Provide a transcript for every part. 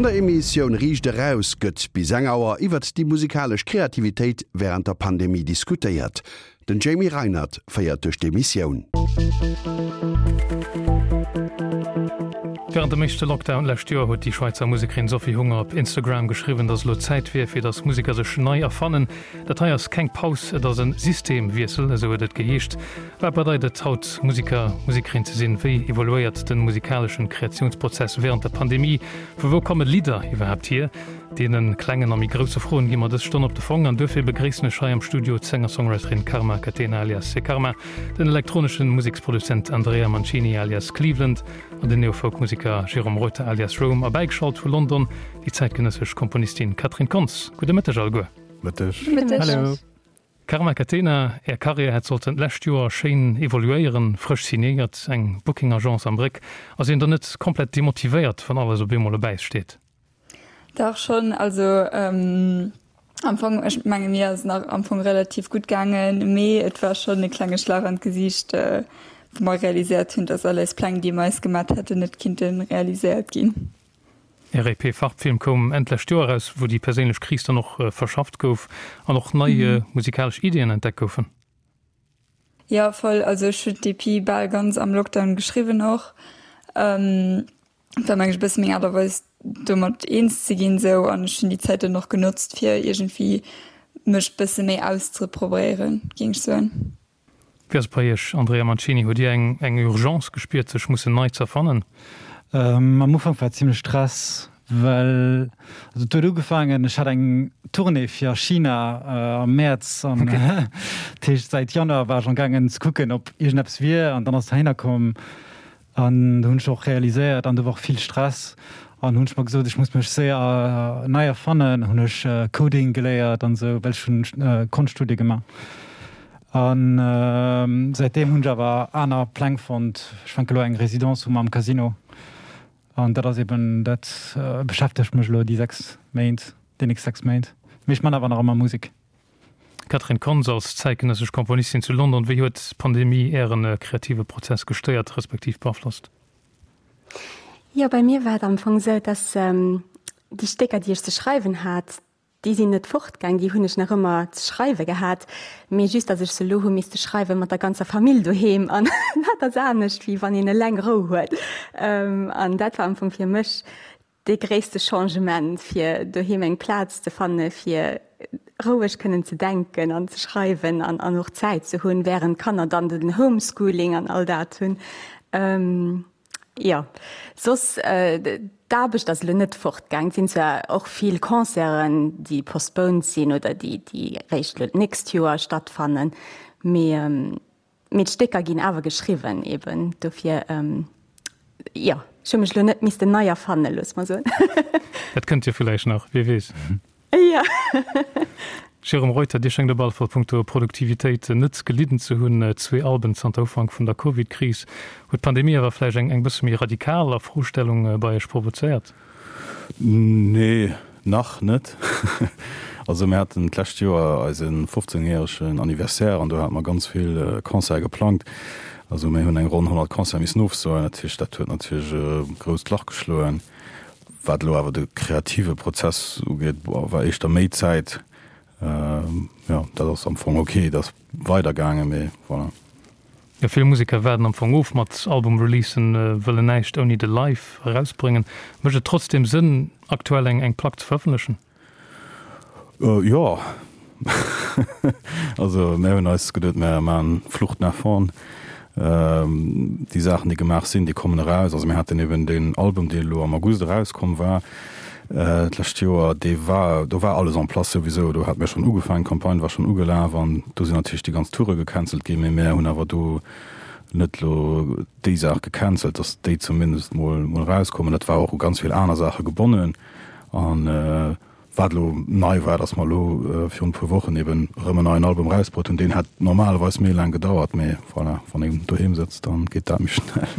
An der Emissioun Riicht Eraus gëtt bis eng Auer iwwert déi musikalesch Kreativitéit wärend der Pandemie diskutéiert. Den Jamie Reinert féiert duerch d'Emissioun. Wärend dem éischte Lockdown d'lescht Joer huet déi Schwäizer Musekerin Sophie Hunger op Instagram geschriwwen, datt elo Zäit wier, fir datt Museker sech nei erfannen. Dat hei ass keng Paus, et ass e Systemwiessel, esou huet et geheescht. Wat bedeit et haut Museker, Musekerin ze sinn? Wéi evoluéiert de musikaleschen Kreatiounsprozess wärend der Pandemie? Vu wou komme Lidder iwwerhaapt hier? Deene klengen a méi grousse Froen gi mer dës Stonn op de Fong an duerfir begréissen ech hei am Studio d'Sänger-Songwriterin Karma Catena alias Sekarma, den elektronesche Museksproduzent Andrea Mancini alias Cleveland an den Neo-Folk-Museker Jérôme Reuter alias Rome a bäigeschalt vu London déi zäitgenëssesch Komponistin Catherine Kontz. Gudde Mëtteg alleguer. Mëtteg. Hallo. Karma Catena, Är Karriär hätt sollten d'lescht Joer schéin evoluéieren, frësch signéiert, eng Booking-Agence am Bréck. Ass een dann net komplett demotivéiert, wann alles op eemol op Äis steet? Dach schonn, also am Fong, ech menge mir ass et nach am Fong relativ gutt gaangen, mee et war schonn e klenge Schlag an d'Gesiicht, wou mer realiséiert hunn, datt all eis Pläng, déi mer eis gemat hätten, net kinnte realiséiert ginn. Är EP Farbfilm koum Enn d'lescht Joer eraus, wou déi perséinlech Kris dann och verschafft gouf an och nei musikalesch Iddien entdeckt goufen. Jo, voll. Also ech hunn d'EP bal ganz am Lockdown geschriwwen och. Et war meng ech e bësse meng Aart a Weis domat eens ze ginn esou an ech hunn déi Zäit dann och genotzt fir iergendwéi mech bësse méi auszeprobéieren, géing ech soen. Wéi ass et bei Iech, Andrea Mancini? Hutt Dir eng eng Urgence gespiert sech mussen nei z'erfannen? Am Ufank war et zimlech Stress, well also et huet ugefaangen, ech hat eng Tournée fir a China am Mäerz an dat heescht säit Januar war ech am gaangen ze kucken ob iergendeppes wier an dann ass et heihinner komm An do hunn ech och realiséiert, an do war och vill Stress, an hunn ech mer gesot, ech muss mech séier nei erfannen, hunn ech Coding geléiert an esou, well ech hunn Konschtstudie gemaach. An säitdeem hunn ech awer aner Pläng fonnt. Ech fänke elo eng Residence u mam Casino an dat ass eben, dat beschäftegt mech elo déi 6 Méint, déi nächst 6 Méint. Mee ech man awer nach ëmmer Musek. Catherine Kontz, Als zäitgenëssesch Komponistin zu London, wéi huet d'Pandemie Ären kreative Prozess gestéiert, respektiv beaflosst? Jo, bei mir war et am Fong esou, dass déi Stécker, déi ech ze schreiwen hat, déi sinn net fortgaang, déi hunn ech nach ëmmer ze schreiwe gehat, mee just, dass ech se elo hu misste schreiwe mat der ganzer Famill doheem an dat ass anescht, wéi wann een eleng Rou huet. An dat war am Fong fir mech dee gréisste Changement, fir doheem eng Plaz ze fanne fir roueg kënnen ze denken an ze schreiwen an an och Zäit ze hunn, wärend d'Kanner dann den Homeschooling an all dat hunn. Jo, soss d'Aarbecht ass elo net fortgaang. Et sinn zwar och vill Concerten, déi postponed sinn oder déi déi réischt elo d'nächst Joer stattfannen, mee Mee d'Stécker ginn awer geschriwwen eben, dofir, jo, ech hu mech elo net missten nei erfannen, loosse mer soen. Dat kënnt jo villäicht nach, wie weess. Jo. Jérôme Reuter, Dir schéngt op alle Fall punkto Produktivitéit net gelidden ze hunn. Zwee Alben zanter Ufank vun der Covid-Kris. Huet d'Pandemie awer vläicht eng eng bësse méi radikal Afrostellung bei Iech provozéiert? Nee, nach net. Also mir haten d'lescht Joer eise 15 järegen Anniversaire an do hate mer ganz vill Concerte geplangt. Also mir hunn eng ronn 100 Concerte missen ofsoen. Dat heescht, dat huet natierlech e grousst Lach geschloen. Wat elo awer de kreative Prozess ugeet, war éischter méi Zäit. Jo, dat ass am Fong ok, et ass weidergaangen, mee voilà. Jo, vill Museker waarden am Fong of mat Album-Releasen, wëllen näischt ouni de Live erausbréngen. Mécht et trotzdeem Sënn, aktuell eng eng Plack ze verëffentlechen? Jo, also mär hunn eis geduet, mär maachen Flucht nach vorn. Déi Saachen, déi gemaach sinn, déi kommen eraus. Also mir haten eben deen Album, dee elo am August erauskomm war d'lescht Joer, dee war, do war alles en place souwisou. Do hate mir schonn ugefaangen, d'Campagne war schonn ugelaf an do sinn natierlech déi ganz Toure gecancelt ginn. Mee mär hunn awer do net elo déi Saach gecancelt, datt déi zumindest mol erauskommen. Dat war och u ganz vill aner Saache gebonnen an Wat elo nei war, datt mer elo virun e puer Wochen eben erëm en neien Album erausbruet hunn. Deen hätt normalerweis méi laang gedauert, mee voilà, wann een doheem sëtzt, da geet dat méi schnell.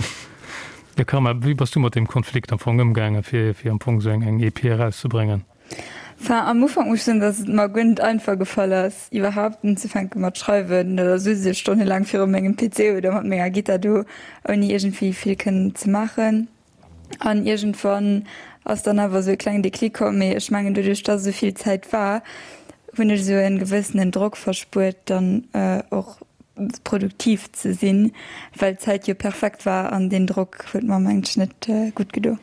Jo Karma, wéi bass du mat deem Konflikt am Fong ëmgaangen, fir fir am Fong esou eng eng EP erauszebréngen? Enfin, am Ufank muss ech soen, datt et mer guer net einfach gefall ass, iwwerhaapt unzefänke mat schreiwen. Da sutz ech stonnelaang viru mengem PC oder mat menger Gittar do, ouni iergendwéi vill kënnen ze maachen. An iergendwann. ass dann awer esou e klengen Déclic komm. Mee ech mengen doduerch dass esou vill Zäit war, hunn ech esou e gewëssenen Drock verspuert dann och produktiv ze sinn, well d'Zäit jo perfekt war an deen Drock huet mer mengen ech net gutt gedo.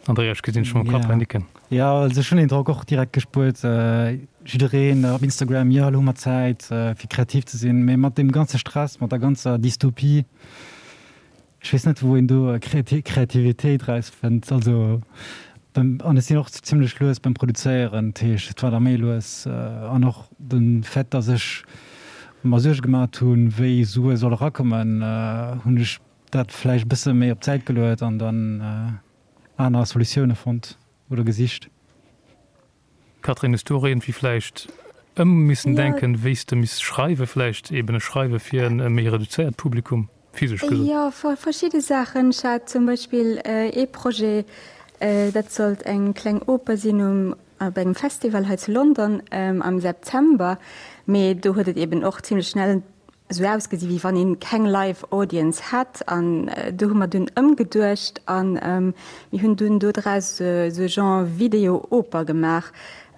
Andrea, ech gesinn dech mam Kapp hei nicken. Jo, also ech hunn deen Drock och direkt gespuert. Jiddereen op Instagram, jo elo hu mer Zäit fir kreativ ze sinn, mee mat deem ganze Stress, mat der ganzer Dystopie, ech weess net wou een do Kreativitéit erausfënnt. Also an ech sinn och zimlech lues beim Produzéieren, dat heescht et war da méi lues an och de Fait, datt ech mer Suerge gemat hunn, wéi Sue solle erakommen, hunn ech dat vläicht e bësse méi op d'Säit geluet an dann aner Solutioune fonnt oder gesicht. Catherine, hues du och iergendwéi vläicht ëm missen denken, wéi s de misst schreiwen, vläicht eben e Schreiwe fir e méi reduzéiert Publikum, physesch gesot? Jo, verschidde Saachen. Ech hat zum Beispill ee Projet, dat sollt eng kleng Oper sinn um op engem Festival hei zu London am September, mee do huet et eben och zimlech schnell esou ausgesi wéi wann een keng live Audience hätt an do hu mer dunn ëmgeduecht an mir hunn dunn do draus esou e Genre Video Oper gemaach.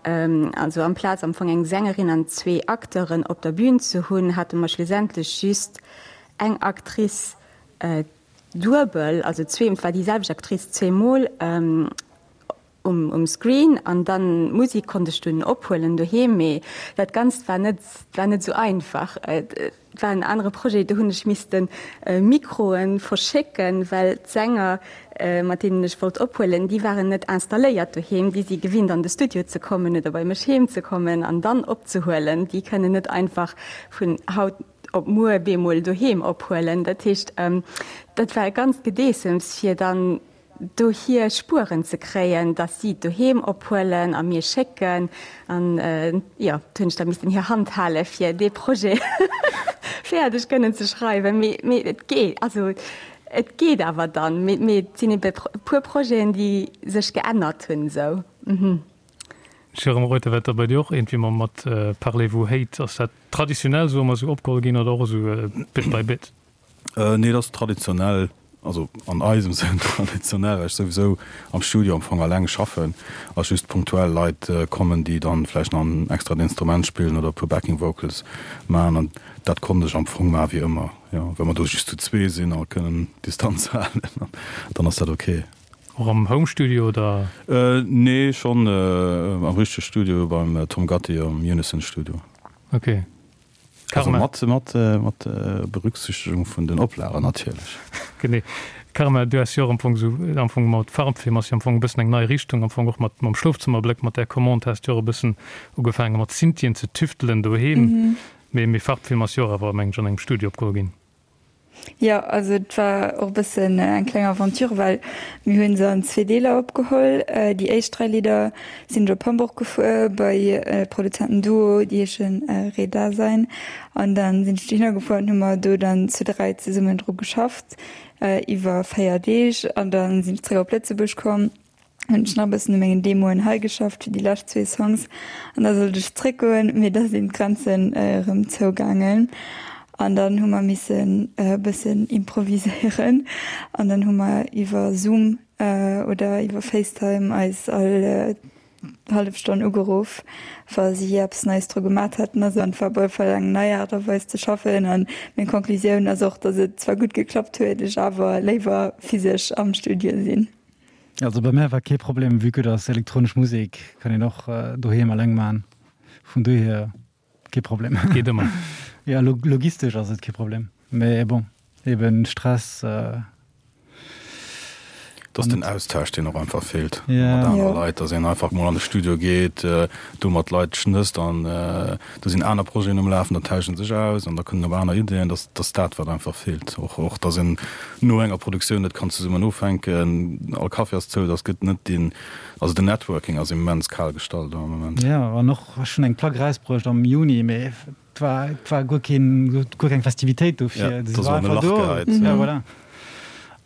Also amplaz am Fong eng Sängerin an zwee Acteuren op der Bühn ze hunn, hate mer schlussendlech just eng Actrice duebel, also zwee, et war déi selwecht Actrice zweemol. Um Screen an dann d'Musik konnt ech dunn ophuelen doheem, mee dat Ganzt war net war net esou einfach. Et war en anere Projet, do hunn ech missten Mikroen verschécken, well d'Sänger mat deenen ech wollt ophuelen, déi waren net installéiert doheem, déi si gewinnt an de Studio ze kommen oder bei mech heem ze kommen an dann opzehuelen. Déi kënnen net einfach vun haut op muer bemol doheem ophuelen. Dat heescht dat war e ganzt Gedeessems fir dann do hir Spueren ze kréien, dass si et doheem ophuelen a mir schécken. An jo, do hunn ech da missten hir Hand hale fir dee Projet fäerdeg kënnen ze schreiwen. Mee, mee et geet, also et geet awer dann. Mee, mee et sinn ebe e puer Projeten, déi sech geännert hunn esou. Jérôme Reuter, wat da bei dir och iergendwéi mam mat Parlez-vous Hate, ass dat traditionell esou ëmmer esou opgeholl ginn oder och esou bit by bit? Nee, dat ass traditionell, also an eisem Sënn traditionell, well ech souwisou am Studio am Fong alleng schaffen a just punktuell Leit kommen, déi dann vläicht nach en extrat Instrument spillen oder e puer Backing Vocals maachen. An dat konnt ech am Fong maachen wéi ëmmer, jo. Well mer do just zu zwee sinn a kënnen Distanz halen, dann ass dat ok. Och am Home Studio oder? Nee, schonn am richtege Studio beim Tom Gatti am Unison Studio. Ok. Also mat, mat, mat Berücksichtegung vun den Oplagen natierlech. Genee. Karma, du has jo och am Fong esou, am Fong mat Farbfilm ass jo am Fong e bëssen eng nei Richtung, am Fong och mat mam Schlofzëmmerbléck, mat där Commande has du jo och e bëssen ugefaange mat Synthien ze tüftelen doheem. Mee, mee Farbfilm ass jo och awer, mengen ech, an engem Studio opgeholl ginn. Jo, also et war och e bëssen eng kleng Aventure, well mir hunn se an zwee Deeler opgeholl. Déi éischt 3 Lidder sinn ech op Hamburg gefuer bei e Produzentenduo, déi heeschen Redasein. An dann sinn ech dohinner gefuer an hu mer do dann zu 3 zesummen dru geschafft iwwer 4 Deeg. An dann sinn ech zréck op Lëtzebuerg komm. hunn ech nach e bëssen u mengen Demoen hei geschafft fir déi lescht zwee Songs an da sollt ech zréckgoen, mee da sinn d'Grenzen erëm zougaangen an dann hu mer missen e bëssen improviséieren an dann hu mer iwwer Zoom oder iwwer Facetime eis all hallef Stonn ugeruff, wa si eppes Neies dru gemat hätten. Also et war op alle Fall eng nei Aart a Weis ze schaffen an meng Conclusioun ass och, datt et zwar gutt geklappt huet, ech awer léiwer physesch am Studio sinn. Also bei mär war kee Problem, vue que dass elektronesch Musek kann een och doheem alleng man, vun dohier kee Problem. Geet ëmmer. Jo, logistesch ass et kee Problem, mee bon, eben Stress. Et ass den Austausch, deen och einfach feelt mat anere Leit, dass een einfach mol an de Studio geet, do mat Leit schnësst an do sinn aner Projeten um Lafen, da tauschen sech aus an da kënnen op aner Ideeën. Dass dass dat wat einfach feelt. Och och dass een no enger Produktioun net kann zesummen ofhänken, all Café ass zou, dass gëtt net deen, also den Networking ass immens kal gestallt am Moment. Jo, an och ech hunn eng Plack erausbruecht am Juni, mee et war et war guer keen guer keng Festivitéit dofir, se war einfach do. Ja, voilà.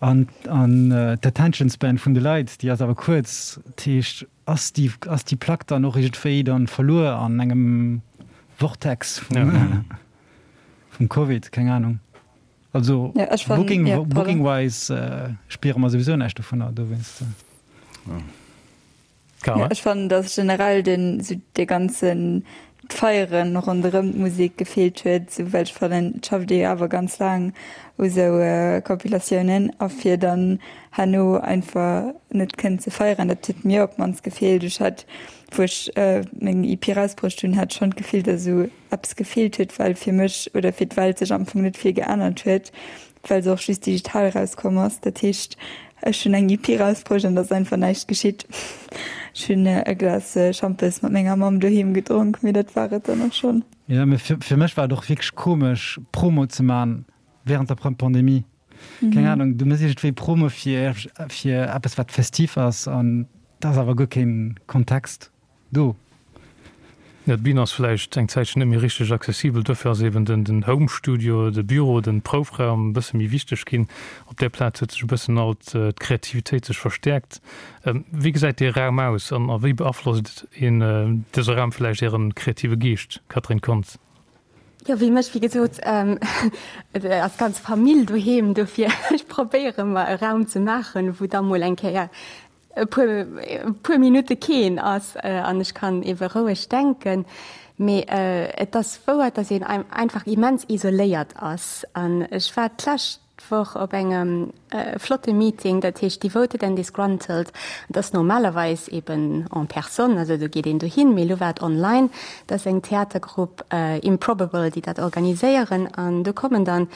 An an d'Attention Span vun de Leit, déi ass awer kuerz, dat heescht Ass déi, ass déi Plack dann och iergendwéi dann verluer an engem Vortex vum, vum Covid? Keng Ahnung. Also Ja, ech fannen, Booking, ja, pardon. Booking-wise spiere mer souwisou näischt dovunner, dowéinst. Ja, ech fannen, dass generell den, sou dee ganzen d'Feieren ronderëm d'Musek gefeelt huet, sou well ech fannen, et schafft ee jo awer ganz laang u sou Compilatiounen a fir dann herno einfach net kënnen ze feieren, dat huet mir op d'mannst gefeelt. Ech hat, wou ech meng EP erausbruecht hunn, hat schonn d'Gefill, dass esou eppes gefeelt huet, well fir mech oder fir d'Welt sech am Fong net vill geännert huet, well se och just digital erauskomm ass. Dat heescht, ech hunn eng EP erausbruecht an et ass einfach näischt geschitt. Ech hunn e Glas Schampes mat menger Mamm doheem gedronk, mee dat war et dann och schonn. Jo, mee fir mech war et och wierklech komesch, Promo ze man während der Pandemie. Keng Ahnung, du mëss iergendwéi Promo fir fir eppes wat festiv ass an et ass awer guer keen Kontext. Do. Jo, d'Bün ass vläicht eng Zäitchen net méi richteg accessibel, dofir ass eben den Home Studio, de Büro, den Proufraum e bësse méi wichteg ginn. Op där Plaz huet sech e bëssen alt d'Kreativitéit sech verstäerkt. Wéi gesäit dee Raum aus an a wéi beaflosst een dëse Raum vläicht Äre kreative Geescht, Catherine Kontz? Jo, wéi mech, wéi gesot, et ass ganz Famill doheem, dofir ech probéiere mer e Raum ze maachen, wou da mol eng Kéier e puer, e puer Minutte keen ass an ech kann ebe roueg denken. Mee et ass wouer, dass een einfach immens isoléiert ass. An ech war d'lescht Woch op engem flotte Meeting, dat heescht Devoted and Disgruntled. Dat ass normalerweis eben en personne, also do geet een dohin, mee elo war et online. Dat ass eng Theatergrupp Improbable, déi dat organiséieren an do kommen dann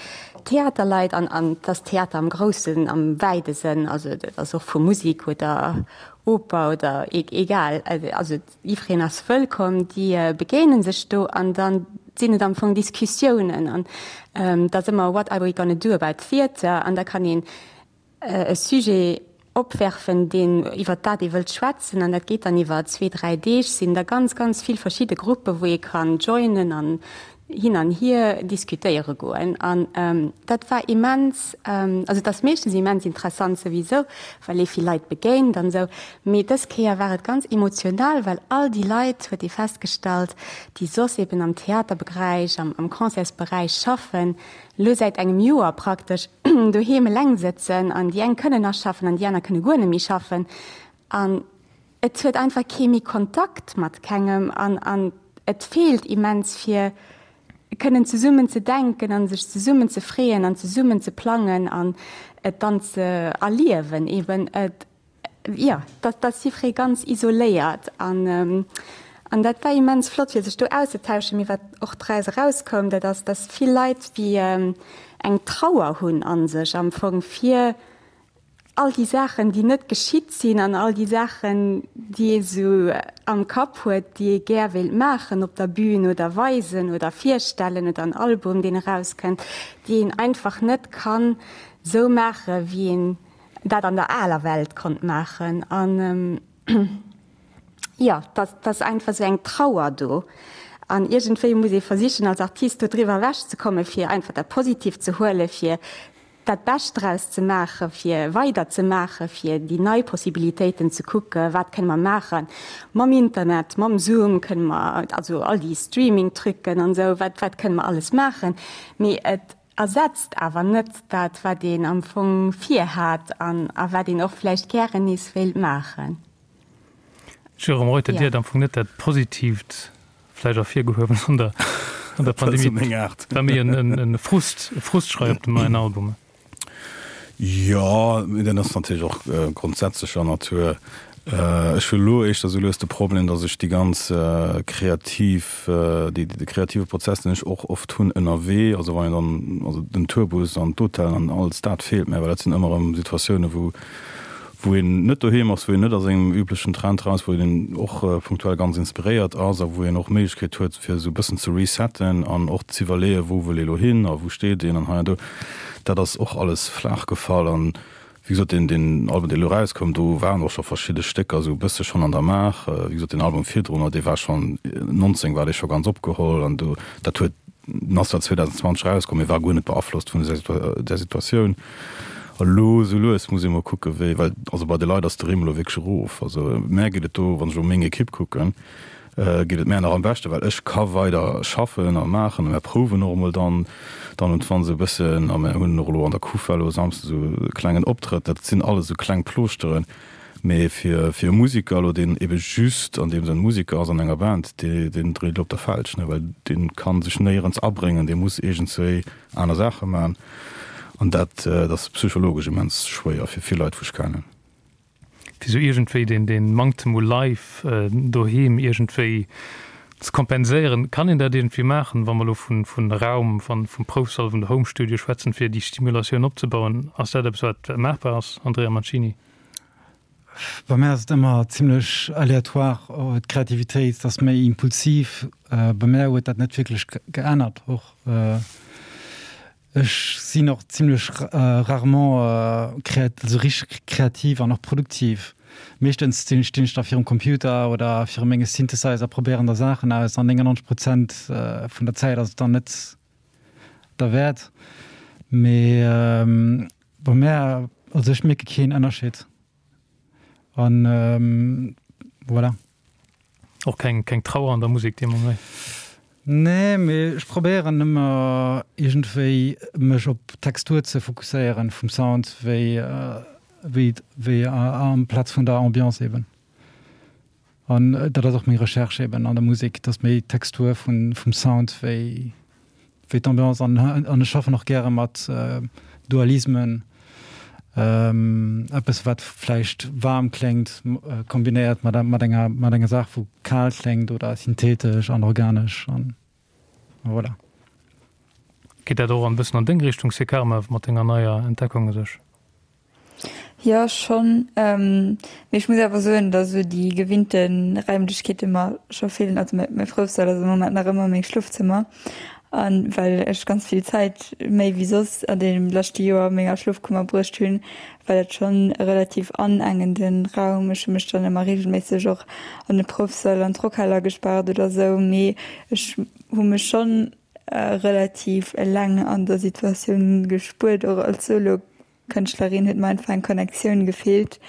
Theaterleit an, an et ass Theater am groussen, am wäide Sënn, also et ass och vu Musik oder Oper oder egal, also jiddwereen ass wëllkomm, déi begéine sech do an da sinn et am Fong Diskussiounen an et ass ëmmer what are we gonna do about theatre an da kann een e Sujet opwerfen, deen, iwwert dat ee wëllt schwätzen an dat geet dann iwwer zwee, dräi Deeg, sinn da ganz, ganz vill verschidde Gruppe wou ee kann joinen an hin an hier diskutéiere goen. An dat war immens, also et ass meeschtens immens interessant souwisou, well ee vill Leit begéint an esou, mee dës Kéier war et ganz emotional, well all déi Leit, huet ee festgestallt, déi soss eben am Theaterbegräich, am Concertsberäich schaffen, elo säit engem Joer praktesch doheem eleng sëtzen an déi eng kënnen nach schaffen an déi aner kënne guer net méi schaffen an et huet einfach kee méi Kontakt mat kengem an an et feelt immens fir kënnen zesummen ze denken an sech zesummen ze freeën an zesummen ze plangen an et dann ze erliewen eben. Et Jo, dat ass jiffree ganz isoléiert an an dat war immens flott fir sech do auszetauschen. Mee wat och draus erauskoum, dat ass, dass vill Leit wéi eng Trauer hunn a sech am Fong fir all déi Saachen, déi net geschitt sinn an all déi Saachen, déi ee sou am Kapp huet, déi ee gär wéilt maachen op der Bühn oder weisen oder virstellen oder en Album, deen erauskënnt, déi een einfach net kann sou maache wéi een dat an der aler Welt konnt maachen an jo, dat ass einfach esou eng Trauer do an iergendwéi muss ee versichen als Artist do driwwer ewech ze kommen, fir einfach dat Positiivt ze huelen, fir dat Bescht draus ze maachen, fir weider ze maachen, fir déi nei Possibilitéiten ze kucken, wat kënne mer maachen mam Internet, mam Zoom kënne mer, also all déi Streaming-Trucken an esou, wat wat kënne mer alles maachen, mee et Ersetzt awer net dat, wat een am Fong virhat an a wat een och vläicht gären nees wéilt maachen. Jérôme Reuter, Dir hat am Fong net dat Positiivt vläicht ervirgehuewen an der an der Pandemie. Et war méi en Frust, e Frustschrei op dem neien Album. Jo, mee dat ass natierlech och grondsätzlecher Natur. Ech hu elo éischter esou lues de Problem, datt ech déi ganz kreativ, déi, de kreative Prozess, deen ech och oft hunn ënnerwee, also wann een dann, also den Tourbus an d'Hotellen an alles dat feelt mär, well dat sinn ëmmer erëm Situatiounen, wou, wou een net doheem ass, wou een net a sengem üblechen Train ass, wou een och punktuell ganz inspiréiert ass a wou een och d'Méiglechkeet huet, fir esou e bëssen ze resetten an och z'iwwerleeën, wou wëll ee lo hin a wou steet een an hei an do. Dat ass och alles flaach gefall an Wéi gesot, deen, deen Album, dee elo erauskoum, do waren och scho verschidde Stécker esou e bësse schonn an der Maach. Wéi gesot, deen Album virdrunner, dee war schonn, 19 war dee scho ganz opgeholl an do, dat huet, den ass zwar 2020 erauskomm, mee war guer net beaflosst vun där Situatioun. A lo esou lues muss ee mol kucke wéi, well also bei de Leit ass de Rimm elo wierklech erof. Also mär geet et do, wann ech elo meng Ekipp kucken, geet et mär nach am beschten, well ech ka weider schaffen a maachen a mär prouwen och emol dann dann und wann esou e bëssen a mär hunn och elo an der Kufa elo e Samsden esou e klengen Optrëtt. Dat sinn alles esou kleng Plooschteren. Mee fir fir e Musiker elo, deen ebe just an deem Sënn Musiker ass an enger Band, dee deen dréit elo op der Felg, ne, well dee ka sech néierens abréngen, dee muss iergendswéi aner Saache man. An dat dat ass psychologesch immens schwéier fir vill Leit, wou ech kennen. Fir sou iergendwéi deen deen Manktem u Live doheem iergendwéi ze kompenséieren. Kann een dat iergendwéi maachen, wa mer elo vun vun Raum, van vum Proufsall, vun der Home Studio schwätzen, fir déi Stimulatioun opzebauen? Ass dat eppes wat maachbar ass, Andrea Mancini? Bei mär ass et ëmmer zimlech aléatoire, d'Kreativitéit ass méi impulsiv. Bei mär huet dat net wierklech geännert och. Ech sinn och zimlech rarement also richteg kreativ an och produktiv. Meeschtens stinn ech da virum Computer oder viru menge Synthesizer, probéieren da Saachen aus an 99 Prozent vun der Zäit ass et dann net derwäert. Mee bei mär, also ech mierke keen Ënnerscheed an voilà. Och keng, keng Trauer an der Musek dee Moment? Nee, mee ech probéieren ëmmer iergendwéi mech op d'Textur ze fokusséieren vum Sound wéi, wéi, wéi amplaz vun der Ambiance eben. An dat ass och meng Recherche eben an der Musek, dass méi d'Textur vun, vum Sound wéi, wéi d'Ambiance an an ech schaffen och gäre mat Dualismen, eppes wat vläicht waarm kléngt kombinéiert mat mat enger mat enger Saach wou kal kléngt oder synthetesch an organesch an voilà. Geet dat och en bëssen an deng Richtung, Sekarma, mat denger neier Entdeckung u sech? Jo schonn, mee ech muss awer soen, datt esou déi gewinnte Raimlechkeete mer scho feelen. Also mäi Proufsall ass am Moment nach ëmmer meng Schlofzëmmer a well ech ganz vill Zäit méi wéi soss an deem leschte Joer a menger Schlofkummer bruecht hunn, war dat schonn e relativ anengende Raum. Ech hu mech dann ëmmer reegelméisseg och an de Proufsall an d'Rockhal agespaart oder esou, mee ech hu mech schonn relativ eleng an der Situatioun gespuert, och als Solo. Kënschtlerin huet mer einfach eng Connectioun gefeelt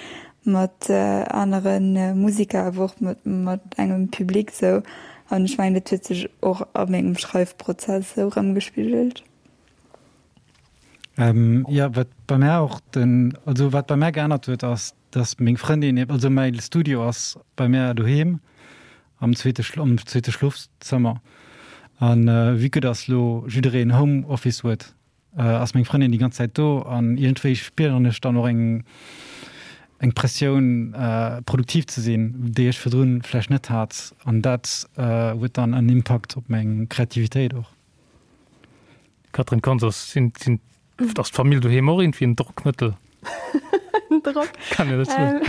mat anere Musiker, awer och mat engem Public sou. An ech mengen, dat huet sech och a mengem Schreifprozess sou erëmgespigelt. Jo, wat bei mär och den, also wat bei mär geännert huet, ass, dass meng Frëndin, also mäi Studio ass bei mär doheem am zweete, am zweete Schlofzëmmer. An vue que dass lo jiddereen Home Office huet, ass meng Frëndin déi ganz Zäit do an iergendwéi spieren ech dann och eng eng Pressioun produktiv ze sinn, déi ech virdrun vläicht net hat an dat huet dann en Impakt op meng Kreativitéit och. Catherine Konz, sinn sinn ass d'Famill doheem och iergendwéi en Drockmëttel? En Drock? Kann een dat soen?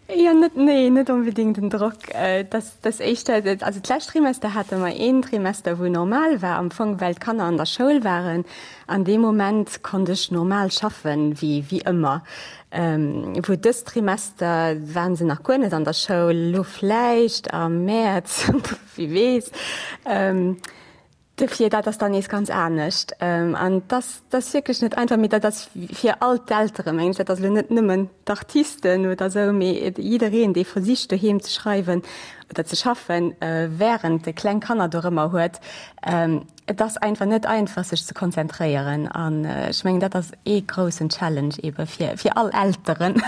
Jo, net, nee, net onbedéngt en Drock. Dat Dass éischter, also d'lescht Trimester hate mer een Trimester wou normal war am Fong, well d'Kanner an der Schoul waren. An deem Moment konnt ech normal schaffen, wéi wéi ëmmer. Wou dëst Trimester waren se nach guer net an der Schoul, elo vläicht am Mäerz, wie weess. Dofir, dat ass dann nees ganz anescht. An dass ass wierklech net einfach, mee dat ass fir all d'Eltere mengen ech, dat ass elo net nëmmen d'Artisten oder esou, mee jiddereen, dee versicht doheem ze schreiwen oder ze schaffen, wärend e kleng Kanner dorëmmer huet. Et ass einfach net einfach, sech ze konzentréieren. An ech mengen, dat ass ee groussen Challenge eebe fir, fir all Elteren.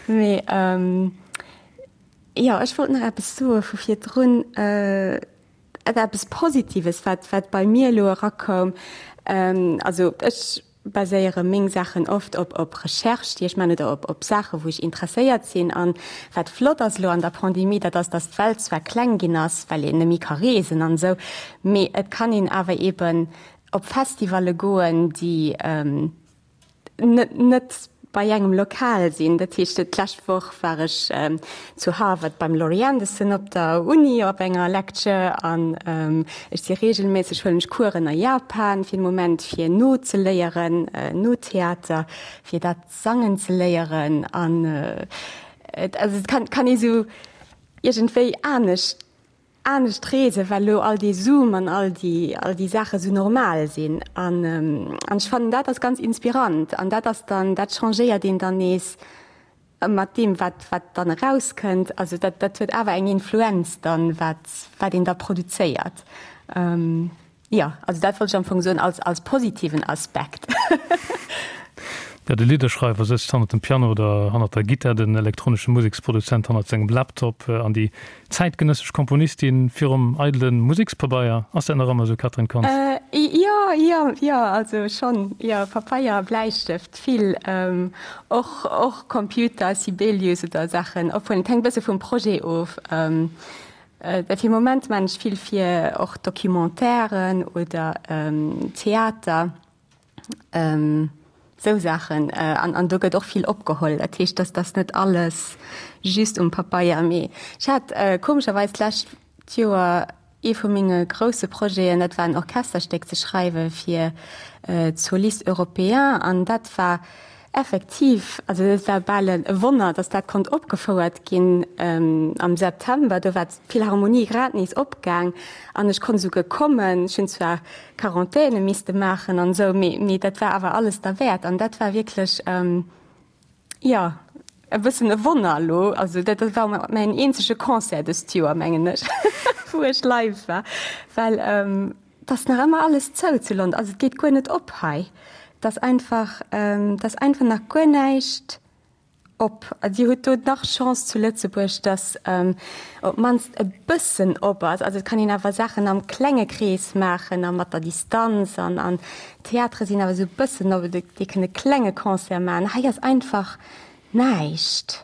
Mee jo, ech wollt nach eppes soe vu virdrun. Et eppes Positives, wat, wat bei mir elo erakoum, also ech baséiere meng Saachen oft op, op Recherche, déi ech man, oder op, op Saache wou ech interesséiert sinn. An wat flott ass elo an der Pandemie, dat ass, datt d'Welt zwar kleng ginn ass, well een net méi ka reesen an esou, mee et kann een awer eeben op Festivalle goen, déi, net net bei engem lokal sinn. Dat heescht, d'lescht Woch war ech zu Harvard beim Laurie Anderson op der Uni op enger Lecture an ech si reegelméisseg, huelen ech Coursen a Japan fir den Moment fir No ze léieren, No-Theater, fir dat sangen ze léieren an et also et kann kann ee sou iergendwéi anescht anescht reesen, well elo all dee Zoom an all déi, all déi Saache sou normal sinn. An, an ech fannen, dat ass ganz inspirant. An dat ass dann, dat changéiert een dann nees mat deem, wat, wat dann erauskënnt. Also dat, dat huet awer eng Influenz dann, wat, wat een da produzéiert. Jo, also dat wollt ech am Fong soen als, als positiven Aspekt. Jo, de Lidderschreiwer sëtzt hannert dem Piano oder hannert der Gittar, den elektronesche Museksproduzent hannert sengem Laptop an déi zäitgenëssesch Komponistin virum eidele Musekspabeier. Ass dat nach ëmmer esou, Catherine Kontz? Jo, jo, jo, also schonn, jo, Pabeier a Bläistëft vill, och, och Computer, Sibelius oder Saachen, obwuel et hänkt e bësse vum Projet of. Fir Moment maan ech vill fir och Documentairen oder Theater. Esou Saachen. An, an do gëtt och vill opgeholl. Dat heescht, dass dass net alles just um Pabeier. Mee ech hat komescherweis d'lescht Joer ee vu menge grousse Projeten, dat war en Orchesterstéck ze schreiwe fir d'Solistes Européens. An dat war effektiv, also dat war bal e Wonner, dass dat konnt opgefouert ginn am September. Do war d'Philharmonie grad nees opgaang an ech konnt esouguer kommen. Ech hunn zwar Quarantäne misste maachen an esou, mee, mee dat war awer alles derwäert an dat war wierklech, jo, e bëssen e Wonner elo. Also dat war mäin eenzege Concert dëst Joer, mengen ech, wou ech live war, well et ass nach ëmmer alles zou zu London, also et geet guer net op hei. Et ass einfach, et ass einfach nach guer näischt Op. Dir hutt do nach Chance zu Lëtzebuerg, datt op d'mannst e bëssen op ass. Also et kann een awer Saachen am klenge Krees maachen a mat der Distanz an an Theatere sinn awer esou e bëssen op, dir kënnt e klenge Concert maachen. Hei ass einfach näischt.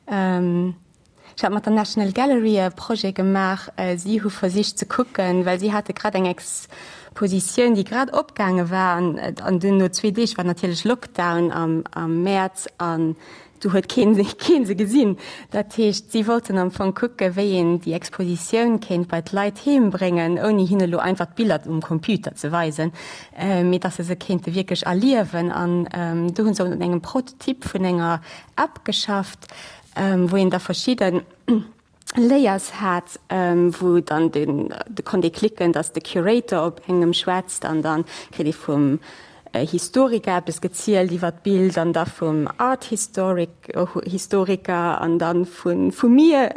Ech hat mat der National Gallery e Projet gemaach. Si hu versicht ze kucken, well si hate grad eng Expositioun, déi grad opgaange war an an dunn no zwee Deeg war natierlech Lockdown am am Mäerz an du huet keen keen se gesinn. Dat heescht, si wollten am Fong kucke wéi een déi Expositioun kéint bei d'Leit heem bréngen, ouni hinne lo einfach d'Biller um Computer ze weisen, mee datt se se kéinte wierklech erliewen. An do hu se un engem Prototyp vun enger App geschafft, wou een da verschidde Layers hat, wou dann den, do konnt ee klicken, datt de Curator op engem schwätzt an dann kritt ee vum Historiker eppes gezielt iwwer d'Bild an da vum Art Historic, Historiker an dann vu vu mir.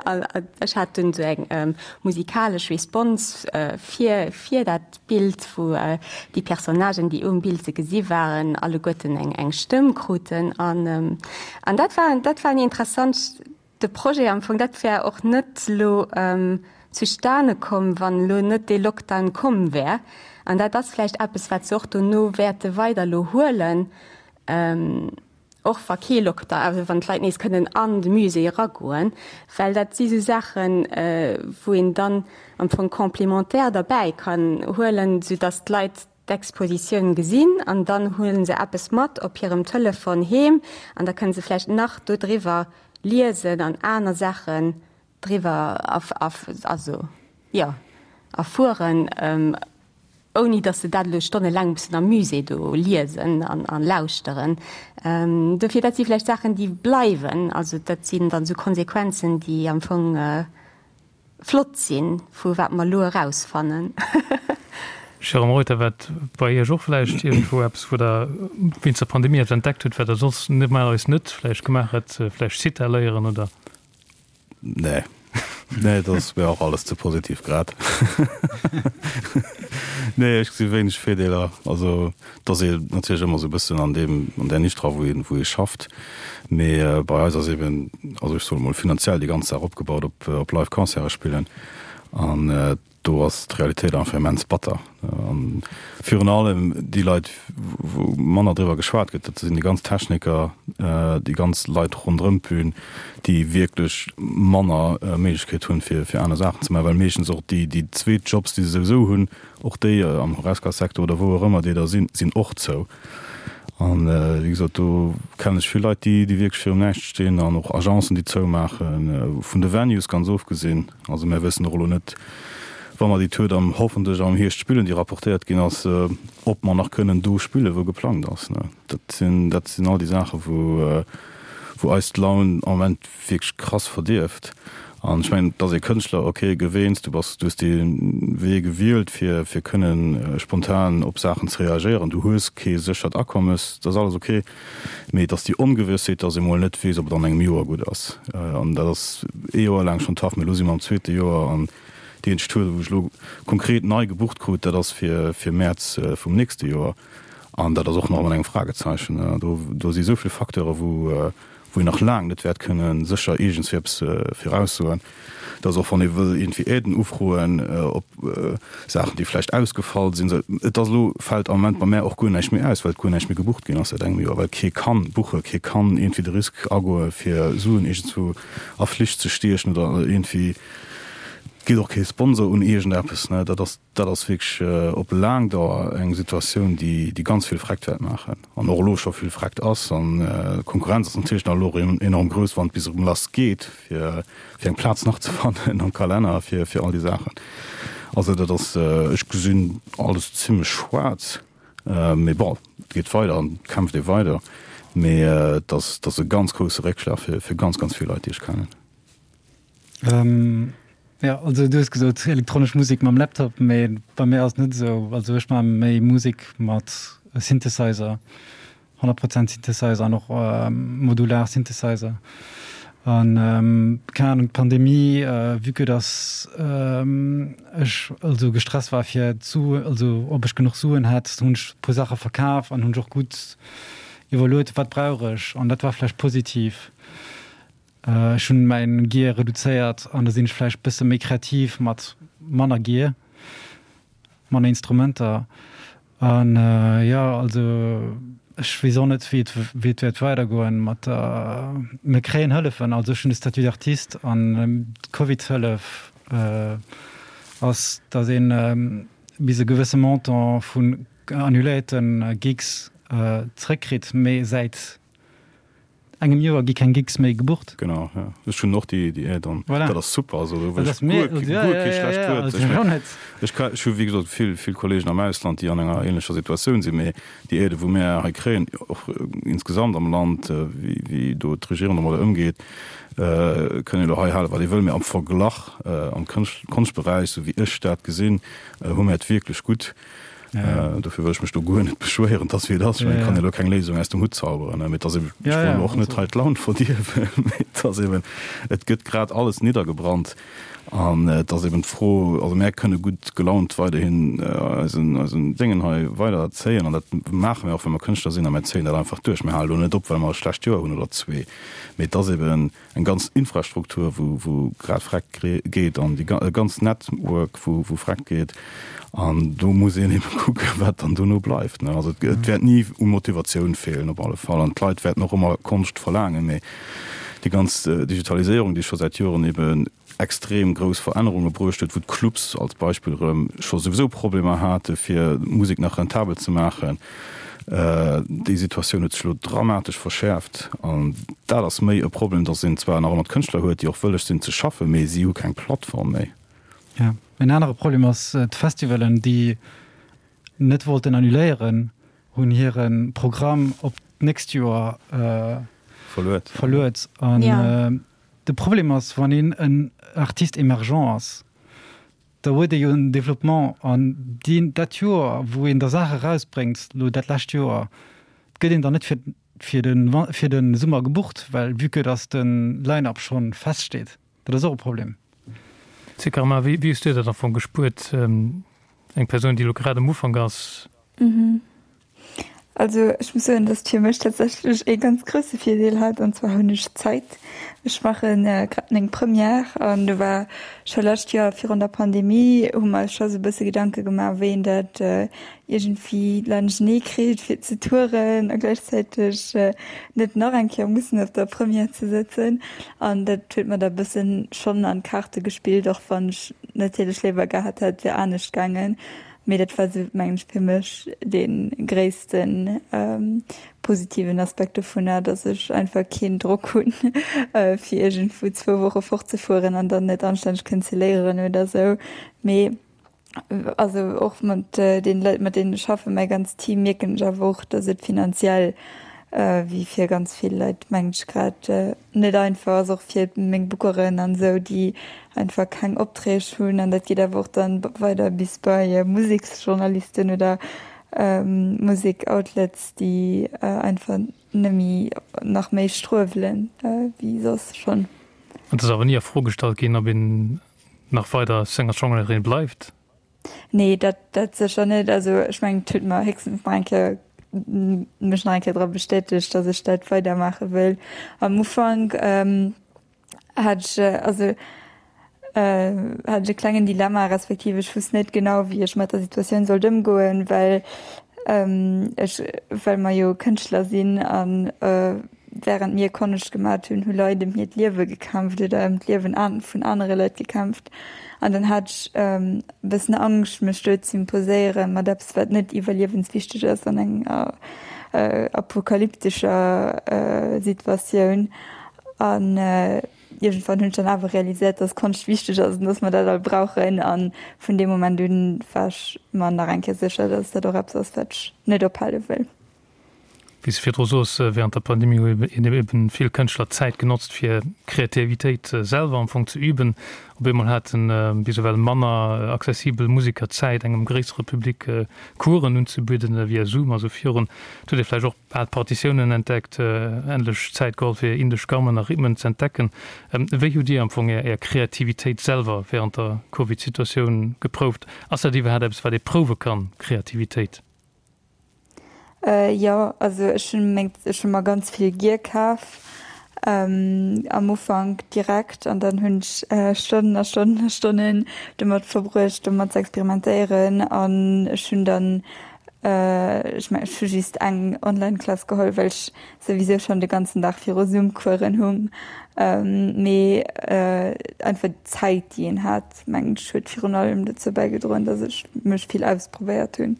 Ech hat dunn esou eng musikalesch Response fir fir dat Bild, wou déi Personnagen, déi um Bild ze gesi waren, alleguerten eng eng Stëmm kruten. An an dat war dat war en interessant de Projet am Fong. Dat wär och net elo zustane komm, wann elo net dee Lockdown komm wär. An dat ass vläicht eppes, wat se och dono wäerte weider elo huelen. Och wa kee Lockdown, also wann d'Leit nees kënnen an de Musée eragoen, well dat si sou Saachen, wou een dann am Fong complémentaire derbäi kann huelen, soudass d'Leit d'Expositioun gesinn an dann huele se eppes mat op hirem Telefon heem an da kënne se vläicht nach dodriwwer liesen an aner Saachen driwwer also jo erfueren. Ouni datt se dat elo stonnelaang mussen am Musée do liesen an lauschteren. Dofir, dat si vläicht Saachen, déi bleiwen. Also dat sinn dann esou Konsequenzen, déi am Fong flott sinn, vu wat mer elo erausfannen. Jérôme Reuter, War et bei Iech och vläicht iergendwou eppes, wou Der wéinst der Pandemie eppes entdeckt hutt, wat Der soss normalerweis net vläicht gemaach hätt, vläicht Sitar léieren oder? Nee. Nee, dat ass mir och alles ze positiv grad. Nee, ech gesi wéineg Virdeeler. Also, et ass ee natierlech ëmmer esou e bëssen an deem, an där Nisch dra, wou een, wou ee schafft. Mee bei eis ass eben, also ech soe mol finanziell déi ganz Saach opgebaut op, op live Concerte spillen. An Do ass d'Realitéit einfach immens batter. An virun allem déi Leit, wou manner driwwer geschwat gëtt, dat sinn déi ganz Techniker, déi ganz Leit ronderëm d'Bün, déi wierklech manner Méiglechkeet hunn, fir fir aner Saachen ze maachen, well meeschtens och déi déi zweet Jobs, déi se souwisou hunn, och déi am Horesca-Secteur oder wou och ëmmer déi da sinn, sinn och zou. An wéi gesot, do kennen ech vill Leit, déi déi wierklech virum Näischt stinn an och Agencen, déi zoumaachen, vun de Venues ganz ofgesinn. Also mär wëssen och elo net, wa mer déi Tour dann hoffentlech am Hierscht spillen, déi rapportéiert ginn ass, ob mer nach kënnen do spillen, wou geplangt ass. Dat sinn, dat sinn all déi Saachen, wou, wou eis d'Laun am Moment wierklech krass verdierft. An ech mengen, et ass ee Kënschtler, okay, gewéinst, du bass, du hues dee Wee gewielt, fir, fir kënnen spontan op Saachen ze reagéieren, du hues kee séchert Akommes, dat ass alles okay. Mee et ass déi Ongewëssheet, dass ee mol net weess, ob et an engem Joer gutt ass. An dat ass ee Joer laang schonn tough, mee elo si mer am zweete Joer an déi eenzeg Tour, wou ech elo konkret nei gebucht krut, dat ass fir fir Mäerz vum nächste Joer. An dat ass och nach mat engem Fragezeichen. Do, do si esou vill Facteure wou, wou een nach laang net wäert kënne sécher iergendswéi eppes viraussoen. Dass och wann ee wëll iergendwéi Aiden ufroen op Saachen, déi vläicht ausgefall sinn, esou, et ass elo, fält am Moment bei mär och guer näischt méi aus, well guer näischt méi gebucht ginn ass säit engem Joer, well kee kann buchen, kee kann iergendwéi de Risk agoe fir Suen iergendswou a Flich ze stiechen oder iergendwéi geet och kee Sponsor un iergendeppes, ne. Dat ass. Dat ass wierklech op laang Dauer eng Situatioun, déi ganz vill Freckt wäert maachen an och elo scho vill Freckt ass. An d'Konkurrenz ass natierlech nach elo enorm grouss, wann et bis erëm lass geet, fir eng Plaz nach ze fannen am Kalenner fir all déi Saachen. Also dat ass, ech gesinn alles zimmlech schwaarz, mee bon, et geet weider an et kämpft ee weider. Mee et ass e ganz grousse Réckschlag fir ganz, ganz vill Leit, déi ech kennen. Ähm, ja, also du hues gesot elektronesch Musek mam Laptop, mee bei mir ass et net esou. Also ech maache méi Musek mat Synthesizer, 100 Prozent Synthesizer an och modular Synthesizer. An keng Ahnung, d'Pandemie, vue que dass ech also gestresst war fir d'Suen, also ob ech genuch Suen hätt, hunn ech e puer Saache verkaf an hunn ech och gutt iwwerluet, wat brauch ech? An dat war vläicht positiv. Ech hunn mäin Gear reduzéiert an da sinn ech vläicht bësse méi kreativ mat manner Gear, manner Instrumenter. An jo, also ech weess och net wéi et wéi et wäert weidergoen mat der, mir kréien Hëllefen, also ech hunn de Statut d'artiste an d'Covid-Hëllef ass, datt een bis e gewësse Montant vun annuléierte Gigs zréckkritt, mee säit engem Joer gi keng Gigs méi gebucht. Genau, ja. Ech hunn och déi, déi Aide an voilà. dat ass super. Also, do wëll ech guer, guer ja, kee schlecht ja, ja, Wuert. Ech mengen, ech ka, ech hu wéi gesot vill, vill Kollegen am Ausland, déi an enger ähnlecher Situatioun sinn, mee déi Aide wou mär hei kréien, och insgesamt am Land, wéi, wéi do d'Regierung domadder ëmgeet, kënn ee lo hei hale wat ee wëll, mee am Verglach am Kënscht, Konschtberäich, sou wéi ech dat gesinn, hu mär et wierklech gutt. Ja. Äh, dofir wëll ech mech do guer net beschwéieren, dass wéi et ass. Ich kann jo keng Léisung aus dem Hutt zauberen, ne? Mee et ass eben, ech wëll och net hei d'Laun verdierwen, mee et ass eben, et gëtt grad alles niddergebrannt an et ass eben d'Fro, also mär kënne gutt gelaunt weiderhin eisen, eisen Déngen hei weider zéien an dat maache mir och, well mer Kënschtler sinn a mär zéien dat einfach duerch. Mir hale lo net op, well mer e schlecht Joer hunn oder zwee, mee et ass eben, eng ganz Infrastruktur, wou, wou grad vreckt geet an déi e ganz Network, wou, wou vreckt geet. An do muss een ebe kucken, wat dann dono bleift, ne. Also et, et wäert ni u Motivatioun feelen op alle Fall an d'Leit wäerten och ëmmer Konscht verlaangen, mee déi ganz Digitaliséierung, déi scho säit Joren ebe extrem grouss Verännerunge bruecht huet, wou d'Clubs als Beispill erëm scho souwisou Problemer hate fir Musek nach rentabel ze maachen. Déi Situatioun huet sech elo dramatesch verschäerft an dat ass méi e Problem, datt een zwar nach ëmmer d'Kënschtler huet, déi och wëlleg sinn ze schaffen, mee si hu keng Plattform méi. Jo, en anere Problem ass d'Festivalen, déi net wollten annuléieren, hunn hire Programm op d'nächst Joer verluet. Verluet. An de Problem ass, wann een en Artiste émergent ass, da huet ee jo en Développement an deen, dat Joer, wou een da Saache erausbréngt, elo dat lescht Joer, gëtt een dann net fir, fir de, fir de Summer gebucht, well vue que dass de Line-up scho feststeet. Dat ass och e Problem. Zikarma, wéi, wéi hues du dat am Fong gespuert, eng Persoun, déi elo grad am Ufank ass? Also ech muss soen, dass et fir mech tatsächlech ee ganz grousse Virdeel hat, an zwar hunn ech Zäit. Ech maache grad meng Première an do war scho lescht Joer virun der Pandemie hu mer eis scho sou e bësse Gedanke gemaach, wéi een dat iergendwéi laanschtnee kritt fir ze touren a gläichzäiteg net nach eng Kéier mussen op der Première ze sëtzen. An dat huet mer da e bëssen schonn an d'Kaarte gespillt, och wann ech natierlech léiwer gehat hätt, et wier anescht gaangen. Mee dat war sou, mengen ech, fir mech dee gréissten positiven Aspekt dovunner, dass ech einfach keen Drock hunn, fir iergendwou zwou Woche fortzefueren an dann net anstänneg kënnen ze léieren oder sou. Mee also och mat deene Leit, mat deenen ech schaffen, mäi ganzt Team, mierken ech awer och, dass et finanziell wéi fir ganz vill Leit, mengen ech, grad net einfach ass, och fir meng Bookeren an esou, déi einfach keng Opträg hunn. An dat geet awer och dann weider bis bei Museksjournalisten oder Musek-Outlets, déi einfach net méi, nach méi struewelen wéi soss schonn. Et ass awer ni a Fro gestallt ginn, ob een nach weider Singer-Songwriterin bleift? Nee, dat, dat sécher net. Also ech mengen, et huet mer héchstens nach eng Kéier. mech nach eng Kéier dra bestätegt, datt ech dat weidermaache wëll. Am Ufank hat ech, also hat ech e klengen Dilemma, respektiv ech wusst net genau, wéi ech mat der Situatioun sollt ëmgoen, well ech, well mer jo Kënschtler sinn an Während mir Konscht gemat hunn, hu Leit ëm hiert Liewe gekämpft oder ëm d'Liewen vun anere Leit gekämpft. An dann hat ech e bëssen Angscht, mech do z'imposéiere mat eppes, wat net iwwerliewenswichteg ass an enger apokalyptescher Situatioun. An iergendwann hunn ech dann awer realiséiert, dass Konscht wichteg ass an dass mer dat all brauchen. A vun deem Moment un war ech mer nach eng Kéier sécher, dass dat och eppes ass, wat ech net ophale wëll. Wéi s de virdru sos, während der Pandemie hu eben vill Kënschtler d'Zäit genotzt, fir Kreativitéit selwer am Fong ze üben. Op eemol hate bis ewell manner accessibel Museker Zäit, engem gréissere Public Coursen unzebidden via Zoom a sou virun. Et huet ee vläicht och al Partitiounen entdeckt, endlech Zäit geholl, fir indesch Gammen a Rhythmen z'entdecken. Wéi hutt Dir am Fong Är Kreativitéit selwer während der Covid-Situatioun geprouft? Ass dat iwwerhaapt eppes, wat ee prouwe kann, Kreativitéit? Jo, also ech hunn meng, ech hu mer ganz vill Gear kaf am Ufank direkt an dann hunn ech Stonnen a Stonnen a Stonnen domat verbruecht domat ze experimentéieren an ech hunn dann, ech mengen ech hu just eng Online-Klass geholl, well ech souwisou schonn de ganzen Dag viru Zoom-Coursen hung, mee einfach d'Zäit déi een hat mengen ech huet virun allem dozou bäigedroen, datt ech mech vill ausprobéiert hunn.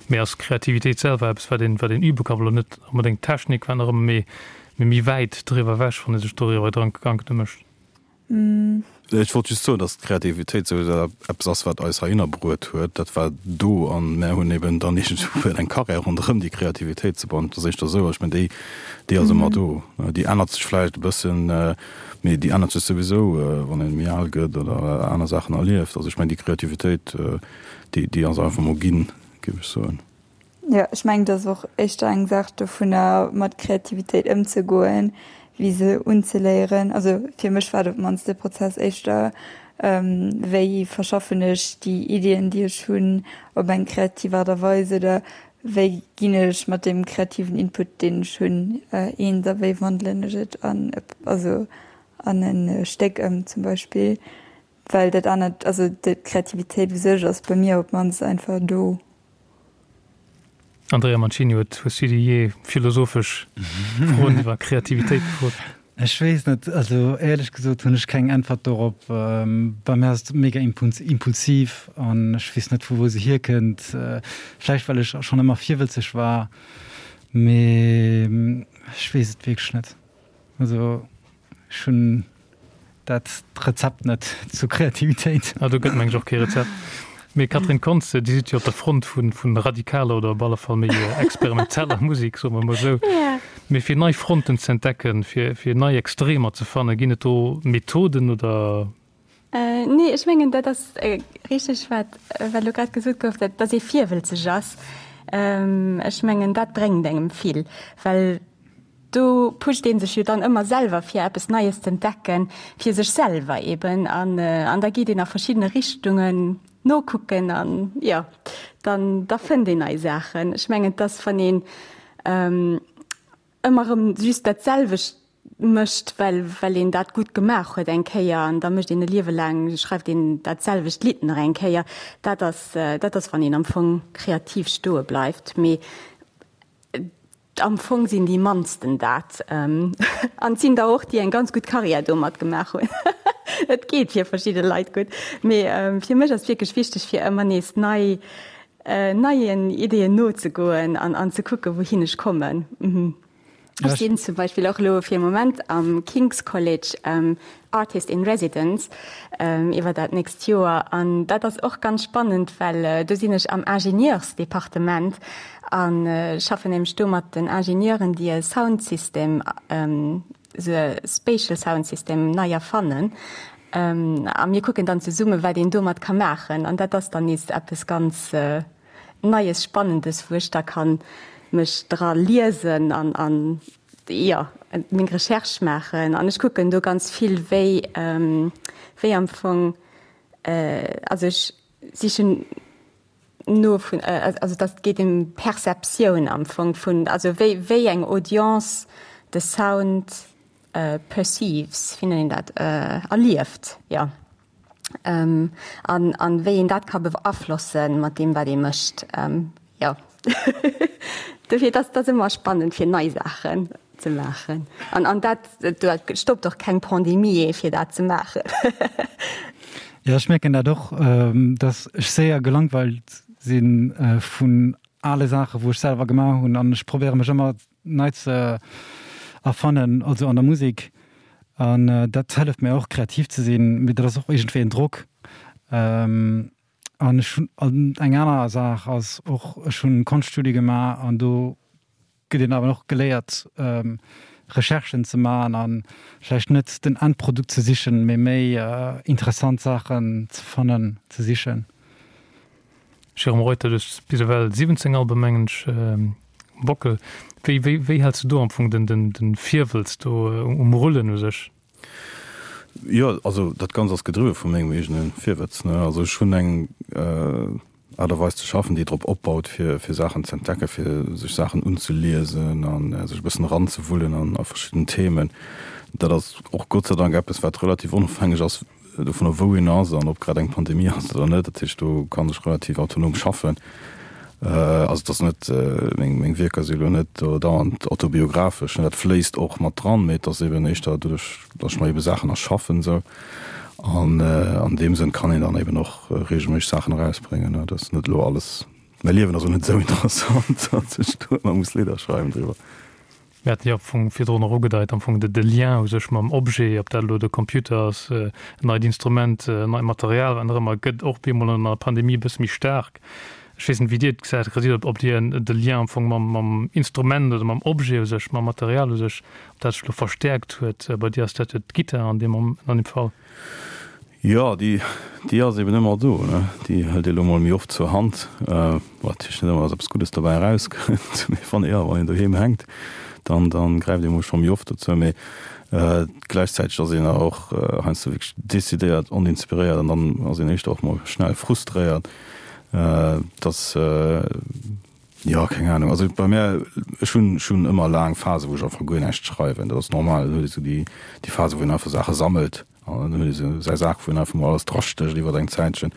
Mee ass Kreativitéit selwer eppes, wat een, wat een übe kann? Elo net onbedéngt Technik, wat nach ëmmer, mee, mee méi wäit driwwer ewech, wann ee sech doriwwer Gedanken mécht. Ech wollt just soen, datt d'Kreativitéit souwisou eppes ass, wat eis heihinner bruet huet. Dat war do an mär hunn eben dann iergendwou eng Karriär ronderëm déi Kreativitéit ze bauen. Et ass éischter esou. Ech mengen, déi, déi ass ëmmer do. Déi ännert sech vläicht e bëssen, mee déi ännert sech souwisou, wann ee méi al gëtt oder aner Saachen erlieft. Also ech mengen, déi Kreativitéit, Déi, déi ass einfach mol ginn, géif ech soen. Jo, ech mengen, et ass och éischter eng Saach dovunner, mat Kreativitéit ëmzegoen, wéi se unzeléieren. Also fir mech war et op d'mannst de Prozess éischter, wéi verschaffen ech déi Iddien, déi ech hunn, op eng kreativ Aart a Weis oder wéi ginn ech mat deem kreativen Input, deen ech hunn, eens a wéi wandelen ech et an, also an e Stéck ëm zum Beispill. Well dat anert, also d'Kreativitéit u sech ass bei mir op d'mannst einfach do. Andrea Mancini, huet hues du dir jee philosophesch Froen iwwer Kreativitéit gefrot? Ech weess net, also éierlech gesot hunn ech keng Äntwert dorop. Bei mir ass et mega impulsiv an ech weess net vu wou se hierkënnt. Vläicht well ech schonn ëmmer virwëtzeg war, mee ech weess et wierklech net. Also ech hunn dat Rezept net zur Kreativitéit. Ah, do gëtt meng ech och kee Rezept. Mee Catherine Kontz, Dir sidd jo op der Front vu vun radikaler oder op alle Fall méi experimenteller Musek, soe mer emol esou. Mee fir nei Fronten ze entdecken, fir fir nei Extremer ze fannen, ginn et do Methoden oder? Nee, ech mengen dat ass richteg wat wat elo grad gesot gouf, dat datt ee virwëlzeg ass. Ech mengen dat bréngt engem vill, well Do pusht ee sech jo dann ëmmer selwer fir eppes Neies z'entdecken, fir sech selwer eben an an da geet een a verschiddene Richtungen nokucken an jo dann da fënnt een nei Saachen. Ech mengen et ass wann een ëmmer erëm just dat selwecht mécht, well well een dat gutt gemaach huet eng Kéier an da mécht een e Liewe laang schreift een dat selwecht Lidd nach eng Kéier, dat ass dat ass wann een am Fong kreativ stoe bleift. Mee Am Fong sinn déi mannsten dat. An et sinn der och, déi eng ganz gutt Karriär domat gemaach hunn. Et geet fir verschidde Leit gutt. Mee fir mech ass wierklech wichteg, fir ëmmer nees nei, neien Ideeën nozegoen an an ze kucken, wouhin ech kommen. Ech sinn zum Beispill och elo fir e Moment am King's College Artist in Residence iwwer dat nächst Joer. An dat ass och ganz spannend, well do sinn ech am Ingenieursdepartement a schaffen nämlech do mat den Ingenieuren, déi e Soundsystem, esou e Spatial Sound System nei erfannen. A mir kucken dann zesummen, wat een domat ka maachen. An dat ass dann nees eppes ganz Neies, Spannendes, wou ech da ka mech dra liesen an jo, meng Recherche maachen an ech kucken do ganz vill, wéi, wéi am Fong, also ech sichen. No vun, also dat geet ëm Perceptioun am Fong vun, also wéi wéi eng Audience de Sound perceives, wéi nennt een dat, erlieft, jo. An an wéi een dat ka beaflossen mat deem wat ee mécht, jo. Dofir dat ass ëmmer spannend fir nei Saachen ze maachen an an dat dat stoppt och keng Pandemie ee fir dat ze maachen. Jo, ech mierken dat och, dass ech séier gelangweilt si vun ale Saachen, wou ech selwer gemaach hunn an ech probéiere mech ëmmer nei ze erfannen, also an der Musek an dat hëlleft mir och kreativ ze sinn, mee dat ass och iergendwéi en Drock. An ech hunn, an eng aner Saach ass och, ech hunn Konschtstudie gemaach an do gëtt een awer och geléiert Recherchen ze maachen a vläicht net den Endprodukt ze sichen, mee méi interessant Saachen ze fannen, ze sichen. Jérôme Reuter, du hues bis ewell 17 Alben, mengen ech, um Bockel. Wéi, wéi, wéi häls du do am Fong den, den, den Virwëlz do um Rullen u sech? Jo, also dat Ganzt ass gedriwwe vu mengem eegene Virwëtz, ne. Also ech hunn eng Aart a Weis ze schaffen, déi drop opbaut, fir fir Saachen ze entdecken, fir sech Saachen unzeliesen a sech e bëssen eranzewullen an a verschidden Themen. Dat ass och Gott sei Dank eppes, wat relativ onofhängeg ass dovunner, wou een ass an ob grad eng Pandemie ass oder net. Dat heescht, do kann ech relativ autonom schaffen. Also et ass net, meng meng Wierker si elo net do dauernd autobiographesch, dat fléisst och mat dran, mee et ass eben éischter doduerch, datt ech mer ebe Saachen erschaffen esou. An an deem Sënn kann een dann eben och reegelméisseg Saachen erausbréngen. Dat ass net elo alles, mäi Liewen ass elo net esou interessant, datt ech do ëmmer muss Lidder schreiwen driwwer. Mir haten jo am Fong virdrun och ugedeit, am Fong de Lien u sech mam Objet, ob dat elo de Computer ass, en neit Instrument, en neit Material, wat nach ëmmer, gëtt och bemol an der Pandemie e bësse méi staark. Ech weess net, wéi Dir et gesäit, Resiert, ob Dir de Lien am Fong mam, mam Instrument oder mam Objet u sech, mam Material u sech, ob dat sech elo verstäerkt huet. Bei dir ass dat jo d'Gittar an deem, an deem Fall. Jo, déi, déi ass eben ëmmer do, ne? Déi hëlt ee lo mol méi oft zur Hand, wat natierlech net ëmmer, dass eppes Guddes dobäi erauskënnt, mee wann, jo, wann een doheem hänkt, dann, dann gräift ee mol scho méi oft dozou. Mee gläichzäiteg ass een awer och heiansdo wierklech decidéiert oninspiréiert an dann ass een éischter och mol schnell frustréiert, dass, jo, keng Ahnung. Also bei mär, ech hunn, ech hunn ëmmer laang Phase wou ech einfach guer näischt schreiwen, dat ass normal. Dann huet ee sou déi, déi Phase wou een einfach Saache sammelt. An dann huet ee sou säi Sak, wou en einfach mol alles drastécht iwwer eng Zäitchen.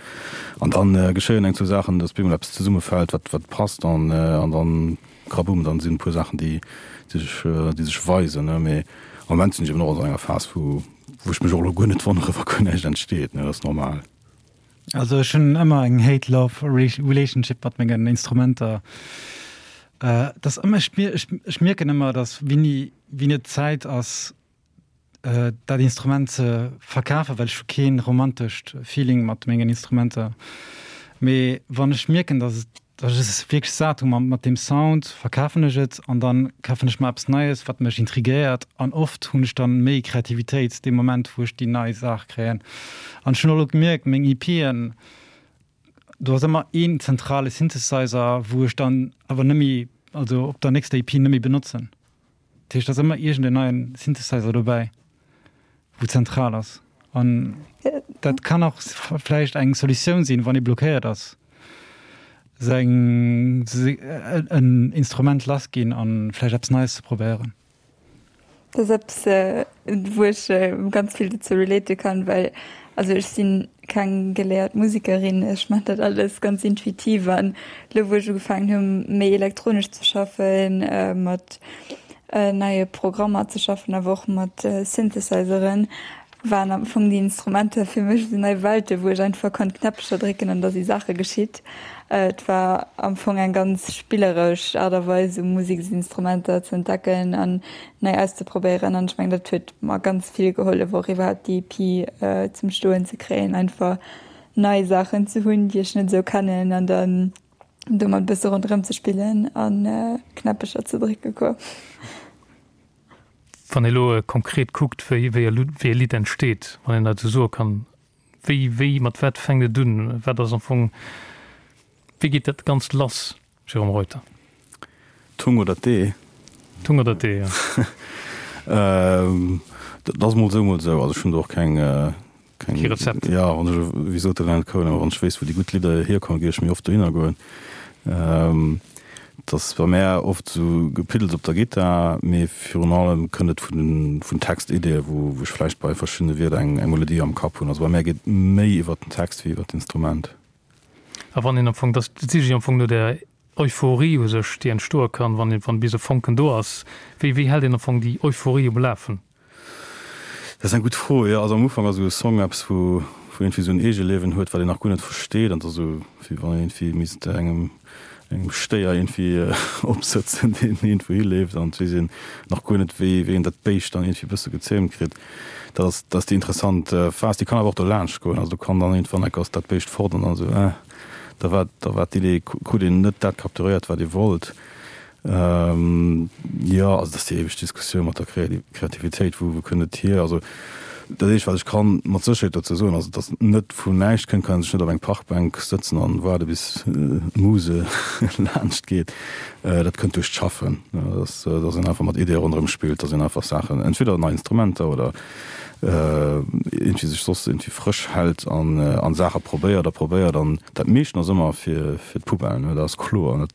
An dann geschéien eng zwou Saachen, dass bemol eppes zesummefält, wat, wat passt. An, an dann, krabumm, dann sinn e puer Saachen, déi sech, déi sech weisen, ne. Mee am Moment sinn ech eben och an esou enger Phas, wou, wou ech mech och elo guer net wonnere, wa guer näischt entsteet, ne. Dat ass normal. Also ech hunn ëmmer eng Hate-Love Relationship mat mengen Instrumenter. Et ass ëmmer, ech, ech mierken ëmmer, dass wéini, wéini et Zäit ass, dat Instrument ze verkafen, well ech hu keen romantescht Feeling mat mengen Instrumenter. Mee wann ech mierken, dass et, dass ech es wierklech sat hu mat deem Sound, verkafen ech et an dann kafen ech mer eppes Neies, wat mech intrigéiert an oft hunn ech dann méi Kreativitéit dee Moment, wou ech déi nei Saach kréien. An ech hunn och elo gemierkt, meng EPen, do ass ëmmer een zentrale Synthesizer, wou ech dann awer nëmme, also op der nächster EP nëmme benotzen. Dat heescht, et ass ëmmer iergend en neien Synthesizer dobäi, wou zentral ass. An dat kann och vläicht eng Solutioun sinn, wann ee blockéiert ass, seng, en Instrument lass ginn an vläicht eppes Neies ze probéieren. Dat ass eppes, wou ech ganz vill dozou relate kann, well also ech sinn keng geléiert Musekerin, ech maachen dat alles ganz intuitiv an elo wou ech ugefaangen hunn méi elektronesch ze schaffen, mat neie Programmer ze schaffen, awer och mat Synthesizeren, waren am Fong déi Instrumenter fir mech esou nei Welte wou ech einfach konnt Knäppecher drécken an da si Saache geschitt. Et war am Fong eng ganz spilleresch Aart a Weis esou Museksinstrumenter ze entdecken an nei auszeprobéieren an ech mengen dat huet mer ganz vill gehollef och iwwerhaapt déi EP zum Stoen ze kréien, einfach nei Saachen ze hunn déi ech net esou kennen an dann domat e bësse ronderëm ze spillen a Knäppecher ze drécke quoi. Wann ee lo konkret kuckt wéi wéi e Lidd entsteet, wann een dat esou soe kann, wéi wéi mat wat fänkt et un, wat ass am Fong, wéi geet dat Ganzt lass? Jérôme Reuter. D'Hung oder d'Ee? D'Hung oder d'Ee, jo. Dat ass mol esou, mol esou. Also ech hunn do och keng. keng Kee Rezept. Jo, wann ech, wéi sot de Leonard Cohen ëmmer, wann ech wéisst, wou déi gutt Lidder hierkommen, géif ech méi oft dohinner goen. Et ass bei mär oft esou Gepiddels op der Gittar, mee virun allem kënnt et vun vun Textiddie, wou wou ech vläicht bei verschiddene Wierder eng eng Melodie am Kapp hunn. Also bei mär geet méi iwwert den Text wéi iwwert d'Instrument. A wann een am Fong, dat siche ech am Fong no där Euphorie u sech, déi entstoe kann, wann wann bis e Fonken do ass. Wéi wéi hält een am Fong déi Euphorie um Lafen? Dat ass eng gutt Fro, jo. Also am Ufank ass esou e Song eppes, wou wou iergendwéi esou en Eegeliewen huet, wat een nach guer net versteet an et ass esou, wéi wann een iergendwéi misst engem engem Stéier iergendwéi opsëtzen, deen iergendwou hileeft an et weess een nach guer net, wéi wéi een dat Béischt dann iergendwéi e bësse gezähmt kritt. Dat ass dat ass déi interessant Phas. Déi kann awer och dolaanscht goen. Also do kann dann iergendwann enk ass dat Béischt fort an dann esou, äh, da war da war d'Idee, krut een net dat capturéiert, wat ee wollt. Jo, also dat ass déi éiweg Diskussioun mat der Kreativitéit, wou kënnt et hier? Also dat eescht wat ech kann mat Sécherheet dozou soen ass, datt et net vun näischt kënnt, kann ee sech net op eng Parkbänk sëtzen an waarde bis d'Muse laanscht geet. Dat kënnt duerch d'Schaffen, datt datt een einfach mat Ideeë ronderëm spillt, datt een einfach Saachen, entweder nei Instrumenter oder iergendwéi sech soss iergendwéi frësch hält an an Saache probéiert a probéiert an dat meeschten ass ëmmer fir fir d'Poubelle, dat ass kloer.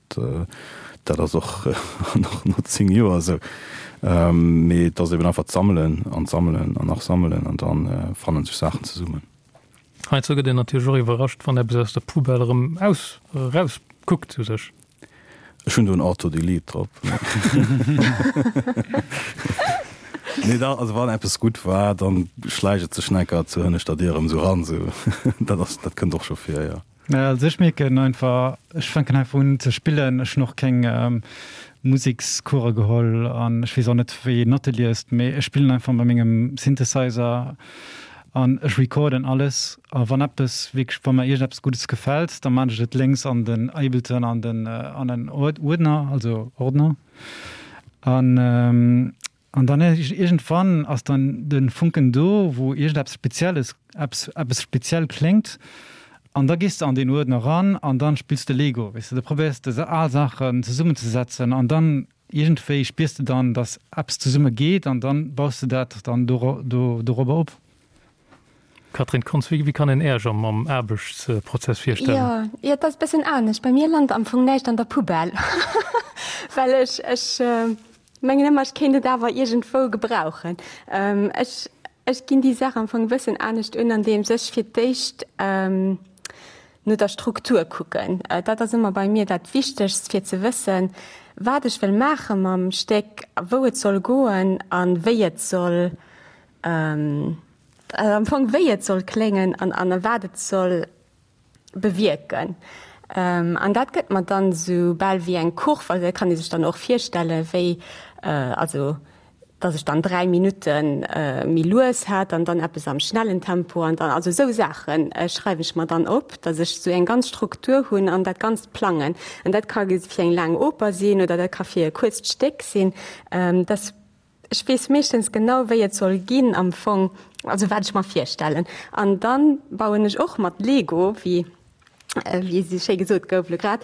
Dat ass och nach no 10 Joer esou. Mee et ass eben einfach d'Sammelen an d'Sammelen an nach sammelen an da fanne sech Saachen zesummen. Heiansdo gëtt een natierlech och iwwerrascht, wann eppes aus der Poubelle erëm aus, eraus kuckt u sech. Ech hunn do en Auto-Delete drop. Nee, da, also wann eppes gutt war, dann schläicht et sech necker zur hënneschter Dier erëm esou ran. Esou, dat ass, dat kënnt och scho vir, jo. Also ech mierken einfach, ech fänken einfach un ze spillen. Ech hunn och keng Musekscourse geholl an ech weess och net wéi een Notte liest, mee ech spillen einfach mat mengem Synthesizer an ech recorden alles. A wann eppes wierklech, wa mer iergendeppes Guddes gefält, da maan ech et lénks an den Ableton an den an en Uerdner, also Ordner. An An dann iergendwann ass dann de Funken do, wou iergendeppes Spezielles, eppes, eppes speziell kléngt. An da gees de an deen Uerdner eran an dann spills de Lego, weess de. Da probéiers de al Saachen zesummenzesetzen an dann iergendwéi spiers de dann, dass eppes zesumme geet an dann baus de dat dann do, do, dorobber op. Catherine Kontz, Wéi kann een Äerch am am Aarbechtsprozess virstellen? Jo, jo, et ass e bëssen anescht. Bei mir lant am Fong näischt an der Poubelle, well ech, ech mengen ëmmer, ech kéint et awer iergendwou gebrauchen. Ech, ech ginn déi Saach am Fong e bëssen anescht un, andeems ech fir d'éischt no der Struktur kucken. Dat ass ëmmer bei mir dat Wichtegst, fir ze wëssen, wat ech wëll maache mam Stéck, wou et soll goen a wéi et soll am Fong wéi et soll kléngen an an wat et soll bewierken. An dat gëtt mer dann esou bal wéi eng Kurv, also dat kann ee sech dann och virstelle wéi, also datt ech dann 3 Minutte méi lues hat an dann eppes am schnellen Tempo an dann, also esou Saache schreiwen ech mer dann op, datt ech esou eng ganz Struktur hunn an dat Ganzt plangen. An dat ka fir eng laang Oper sinn oder dat ka fir e kuerzt Stéck sinn. Dass Ech weess meeschtens genau, wéi et soll ginn am Fong, also wat ech mer virstellen. An dann bauen ech och mat Lego, wéi wéi esou schéi gesot gouf elo grad,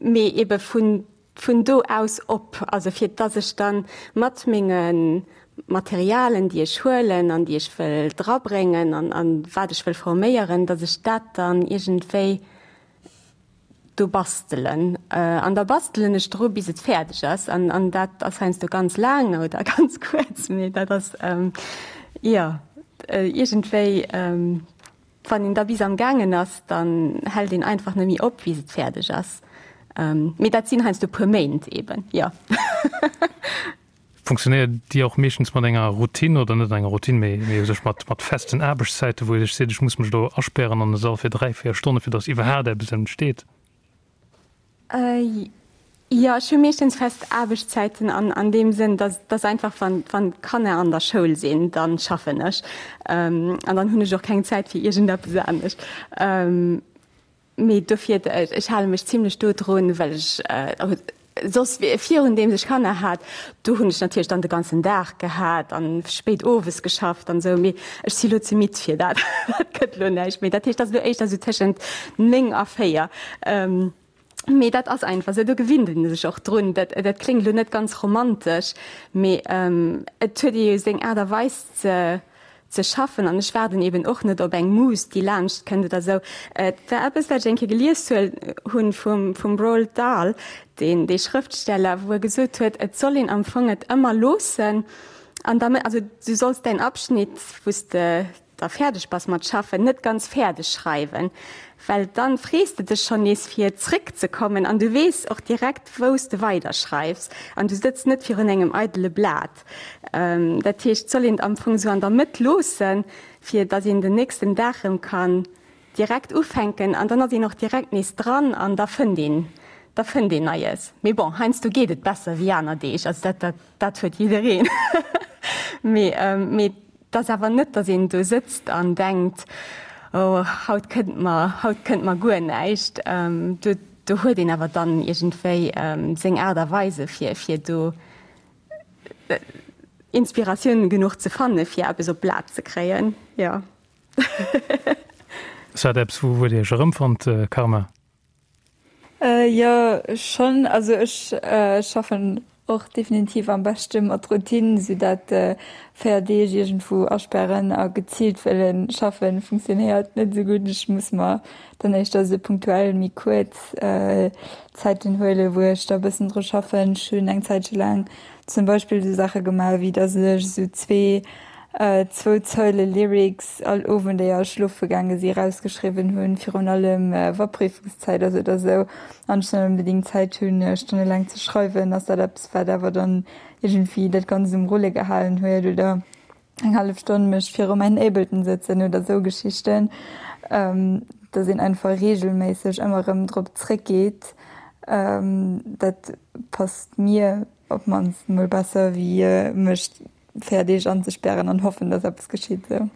mee ebe vun vun do aus op, also fir dass ech dann mat menge Materialen, déi ech huelen an déi ech wëll drabréngen an an wat ech wëll forméieren, dass ech dat dann iergendwéi do bastelen. An da bastelen ech dru bis et fäerdeg ass. An, an dat ass heiansdo ganz laang oder ganz kuerz, mee dat ass, jo, iergendwéi, wann een da bis am gaangen ass, dann hält een einfach net méi op, bis et fäerdeg ass. Mee dat sinn heiansdo puer Méint eben, jo. Funktionéiert Dir och meeschtens mat enger Routine, oder net enger Routine, mee mee u sech mat mat festen Aarbechtszäiten, wou Dir sech seet, ech muss mech elo aspären an e Sall fir 3, 4 Stonne fir datt iwwerhaat eppes entsteet? Jo, ech hu meeschtens fest Aarbechtszäiten an an deem Sënn, datt datt einfach wann wann d'Kanner an der Schoul sinn, dann schaffen ech an dann hunn ech och keng Zäit fir iergendeppes anescht. Mee dofir, ech hale mech zimlech do drun, well ech soss virun deems ech Kanner hat, do hunn ech natierlech dann de ganzen Dag gehat an spéit owes geschafft an esou. Mee ech si lo ze midd fir dat, dat gëtt lo näischt méi. Dat heescht, dat ass lo éischter esou tëschent 9 a 4. Mee dat ass einfach esou, do gewinnt ee sech och drun. Dat dat kléngt lo net ganz romantesch, mee et huet ee jo seng Aart a Weis ze. ze schaffen an ech waarden eben och net op eng Muse, déi laanscht kënnt oder esou. Et war eppes, wat ech eng Kéier gelies hunn vum, vum Roald Dahl, deen, dee Schrëftsteller, wou e gesot huet, et soll een am Fong et ëmmer loossen an da, also du solls däin Abschnitt, wou s de da fäerdeg bass mat schaffen, net ganz fäerdeg schreiwen, well dann frees de dech schonn nees fir zréck ze kommen an du weess och direkt wou s de weider schreifs an du sëtz net virun engem eidele Blat. Dat heescht, et soll een et am Fong esou an der Mëtt loossen, fir datt een den nächsten Dag erëm kann direkt ufänken an dann ass een och direkt nees dran an da fënnt een, da fënnt een Neies. Mee bon, heiansdo geet et besser wéi aner Deeg, also dat, dat, dat huet jiddereen. Mee, mee Et ass awer net, datt een do sëtzt an denkt, oh haut kënnt mer, haut kënnt mer guer näischt. Do, do huet een awer dann iergendwéi seng Aart a Weise fir, fir do Inspiratioun genuch ze fanne fir eppes op d'Blat ze kréien, jo. Ass dat eppes, wou Dir Iech erëmfannt, Karma? Jo schonn, also ech schaffen och definitiv am beschte mat Routine, sou dat 4 Deeg iergendwou asperren a geziilt wëllen schaffen funktionéiert net esou gutt. Ech muss mer dann éischter esou punktuell méi kuerz Zäiten huelen, wou ech da bëssen dru schaffen. Ech hunn eng Zäitche laang zum Beispill esou Saache gemaach, wéi datt ech esou zwee zwou Zeile Lyrics all Owend éier ech schlofe gaange si rausgeschriwwen hunn, virun allem wa Prüfungszäit ass oder sou an ech net onbedéngt Zäit hunn stonnelaang ze schreiwen, ass dat eppes wat awer dann iergendwéi dat Ganzt um Rulle gehalen huet oder eng hallef Stonn mech viru mäin Ableton sëtzen oder sou Geschichten, dass een einfach reegelméisseg ëmmer erëm drop zréckgeet, dat passt mir op d'mannst mol besser wéi mech 4 Deeg anzespären an hoffen, dass eppes geschitt esou.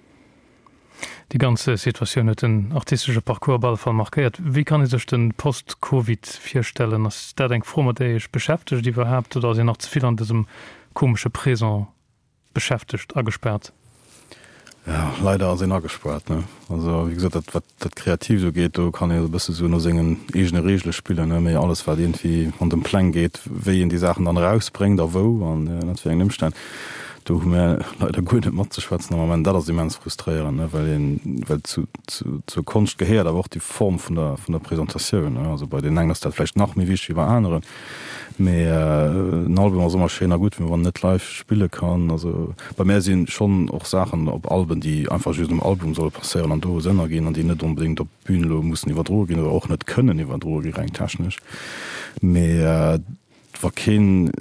Déi ganz Situatioun huet den artistesche Parcours op alle Fall markéiert. Wéi kann ee sech de Post-Covid virstellen? Ass dat eng Fro, mat där Dir Iech beschäftegt iwwerhaapt oder ass een nach ze vill an dësem komesche Présent beschäftegt, agespaart? Jo, leider ass een agespaart, ne? Also wéi gesot, dat wat dat Kreatiivt ugeet, do kann ee e bësse sou no sengen eegene Reegele spillen, ne? Mee alles wat iergendwéi an dem Pläng geet, wéi een déi Saachen dann erausbréngt a wou an ënnert wéi engen Ëmstänn, do hu mär leider guer net matzeschwätzen am Ament. Dat ass immens frustréierend, ne? Well een, well zu, zu, zur Konscht gehéiert awer och déi Form vun der, vun der Presentatioun, ne? Also bei deenen engen ass dat vläicht nach méi wichteg wéi bei aneren. Mee en Album ass ëmmer schéin a gutt, mee wann en net live spille kann, also bei mär si schonn och Saachen op Alben, déi einfach just um Album solle passéieren an do Sënn erginn an déi net onbedéngt op d'Bün elo mussen iwwerdroe ginn oder och net kënnen iwwerdroe gi reng technesch. Mee wa keen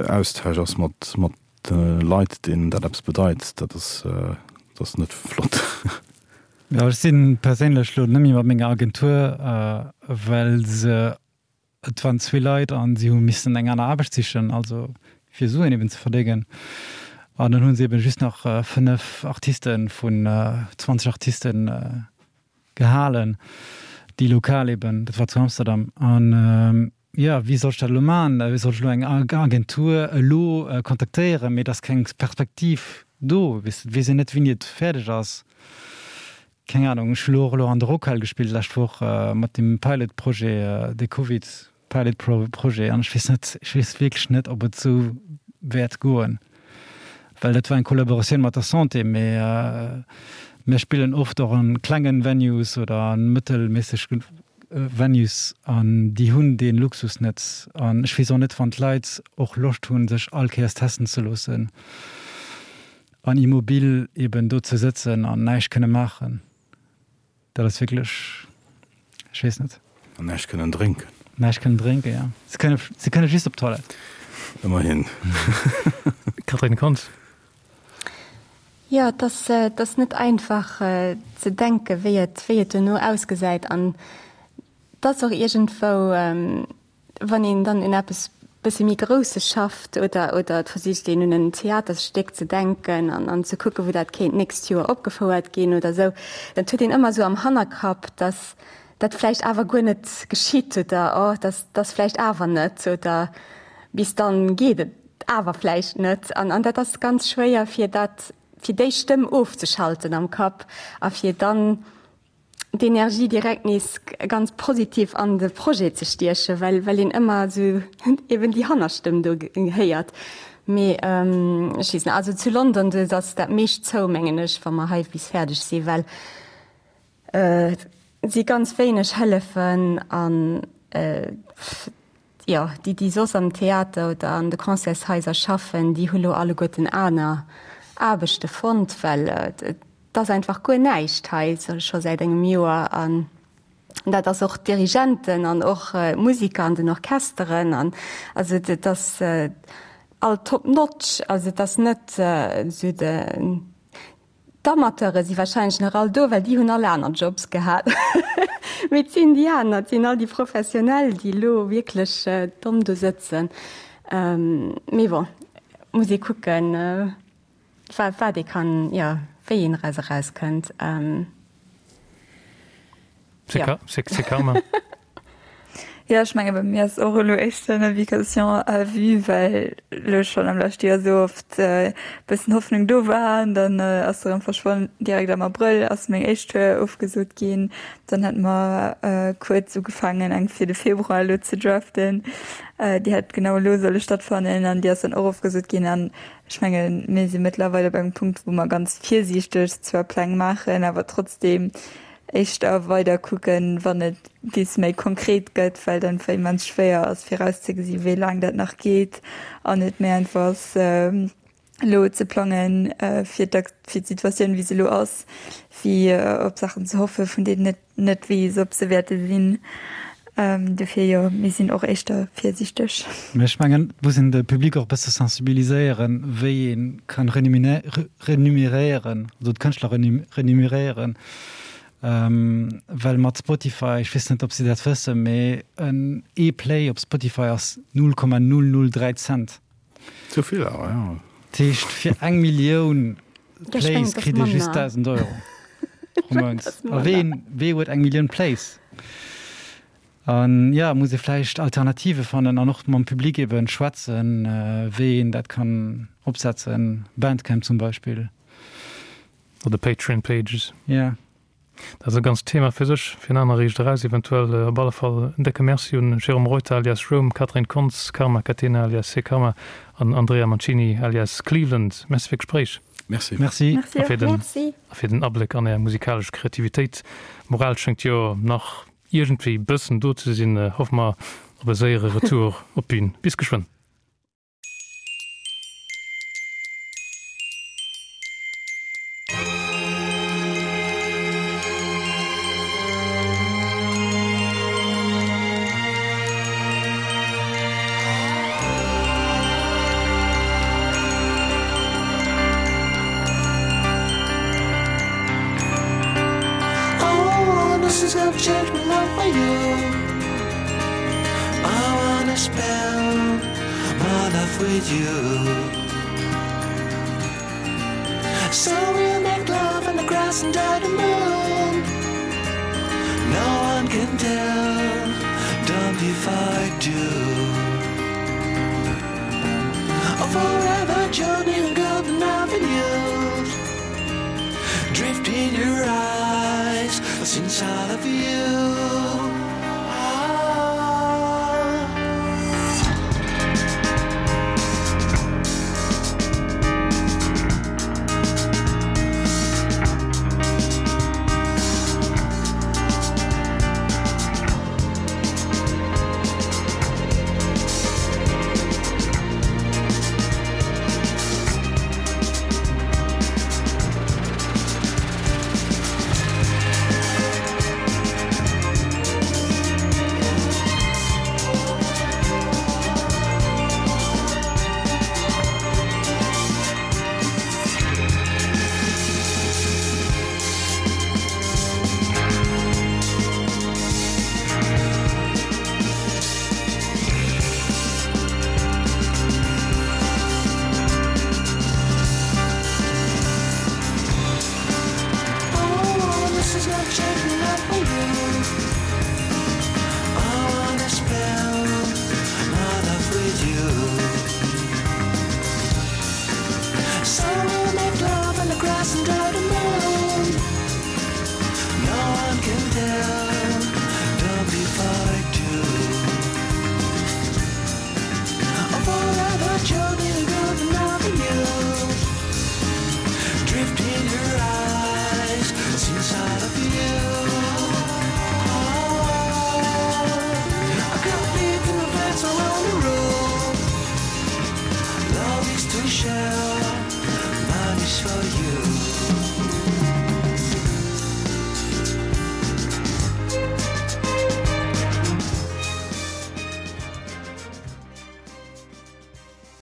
Austausch ass mat mat de Leit, deenen dat eppes bedeit, dat ass dat ass net flott. Jo, ech si perséinlech elo net méi mat menger Agentur, well se Et waren zwee Leit an si hu missen eng aner Aarbecht sichen, also fir Suen eben ze verdéngen. An dann hu se eben just nach 5 Artisten vun 20 Artisten gehalen, déi lokal eben, dat war zu Amsterdam. An jo, wéi soll ech dat elo maachen? Wéi soll ech elo eng Agentur elo kontaktéieren? Mee et ass keng Perspektiv do, weess de, et weess een net, wéini et fäerdeg ass. Keng Ahnung, ech hu lo och elo an der Rockhal gespillt lescht Woch mat deem Pilot Projet, dee Covid Pilot Projet an ech weess net, ech weess wierklech net ob et esou wäert goen, well dat war eng Kollaboratioun mat der Santé, mee mir spillen oft och an klengen Venues oder an mëttelméisseg Venues an déi hunn dee Luxus net an ech weess och net wann d'Leit och Loscht hunn sech all Kéiers testen ze loossen. An immobil eben do ze sëtzen an näischt kënne maachen, dat ass wierklech, ech weess net. An näischt kënnen drénken. Näischt kënnen drénken, jo. Se kënne, se kënne just op d'Toilette. Ëmmerhin. Catherine Kontz. Jo, et ass, et ass net einfach ze denken, wéi et, wéi et duerno ausgesäit. An et ass och iergendwou, Wann een dann un eppes bësse méi Grousses schafft oder oder et versicht een un en Theaterstéck ze denken an an ze kucken, wou dat kéint d'nächst Joer opgefouert ginn oder esou, dann huet een ëmmer esou am Hannerkapp, datt dat vläicht awer guer net geschitt oder oh, dat ass vläicht awer net oder bis dann geet et awer vläicht net. An an dat ass ganz schwéier fir dat fir déi Stëmm ofzeschalten am Kapp a fir dann d'Energie direkt nees ganz positiv an de Projet ze stiechen, well well een ëmmer esou eben déi Hannerstëmm do héiert. Mee ech weess net, also zu London do ass dat meescht zou mengen ech, wa mer hei bis fäerdeg si well et si ganz wéineg Hëllefen an jo déi déi soss am Theater oder an de Concertshaiser schaffen, déi hu lo alleguerten aner Aarbechte fonnt, well et ass einfach guer näischt hei scho säit engem Joer an dat ass och d'Dirigenten an och d'Musiker an den Orchesteren an also et ass all top notch, also et ass net esou de d'Amateure si wahrscheinlech nach all do, well déi hunn all aner Jobs gehat, mee et sinn déi aner, et sinn all déi Professionell, déi elo wierklech domm do sëtzen. Mee bon, muss ee kucken. Wat ee kann, jo, wéi een eraus erauskënnt. Jo. C'est karma. Jo, ech menge bei mir ass och elo éischter Navigation à vue, well elo schonn am leschte Joer esou oft e bëssen Hoffnung do war an dann ass se erëm verschwonn. Direkt am Abrëll ass meng éischt Tour ofgesot ginn. Dann hate mer kuerz ugefaangen eng fir de Februar elo ze draften. Déi hätt genau elo solle stattfannen an déi ass dann och ofgesot ginn. An Ech mengen, mir si mëttlerweil op engem Punkt, wou mer ganz virsiichteg zwar Pläng maachen, awer trotzdeem éischter weider kucken, wann et bis méi konkret gëtt, well et einfach immens schwéier ass virauszegesi wéi laang dat nach geet an et méi einfach ass elo ze plangen fir d'Situatioun wéi se elo ass, wéi op Saachen ze hoffe vun deenen et net weess, ob se wäerte sinn. Dofir jo, mir sinn och éischter virsiichteg. Mä ech mengen, et muss een de Public och e bësse sensibiliséieren, wéi ee kann remuneréieren, also d'Kënschtler remuneréieren. Well mat Spotify, ech weess net, ob si dat wëssen, mee en ee Play op Spotify ass 0,003 Cent. Zu vill awer, jo. Dat heescht, fir eng Millioun Plays kritt ee just 1.000 Euro pro Mount. A ween, wee huet eng Millioun Plays? An jo, muss ee vläicht Alternative fannen an och mam Public eben schwätzen, wéi een dat kann opsetzen, Bandcamp zum Beispill. Oder Patreon Pages. Jo. Dat ass e ganzt Thema fir sech, fir en aner Riicht eraus eventuell. Op alle Fall en décke Merci un Jérôme Reuter alias Rome, Catherine Kontz, Karma Catena alias C-Karma an Andrea Mancini alias Cleveland. Merci fir d'Gespréich. Merci. Merci. A fir den, a fir den Abléck an Är musikalesch Kreativitéit. D'Moral schéngt jo nach iergendwéi bëssen do ze sinn. Hoffe mer op e séiere Retour op d'Bün. Bis geschwënn.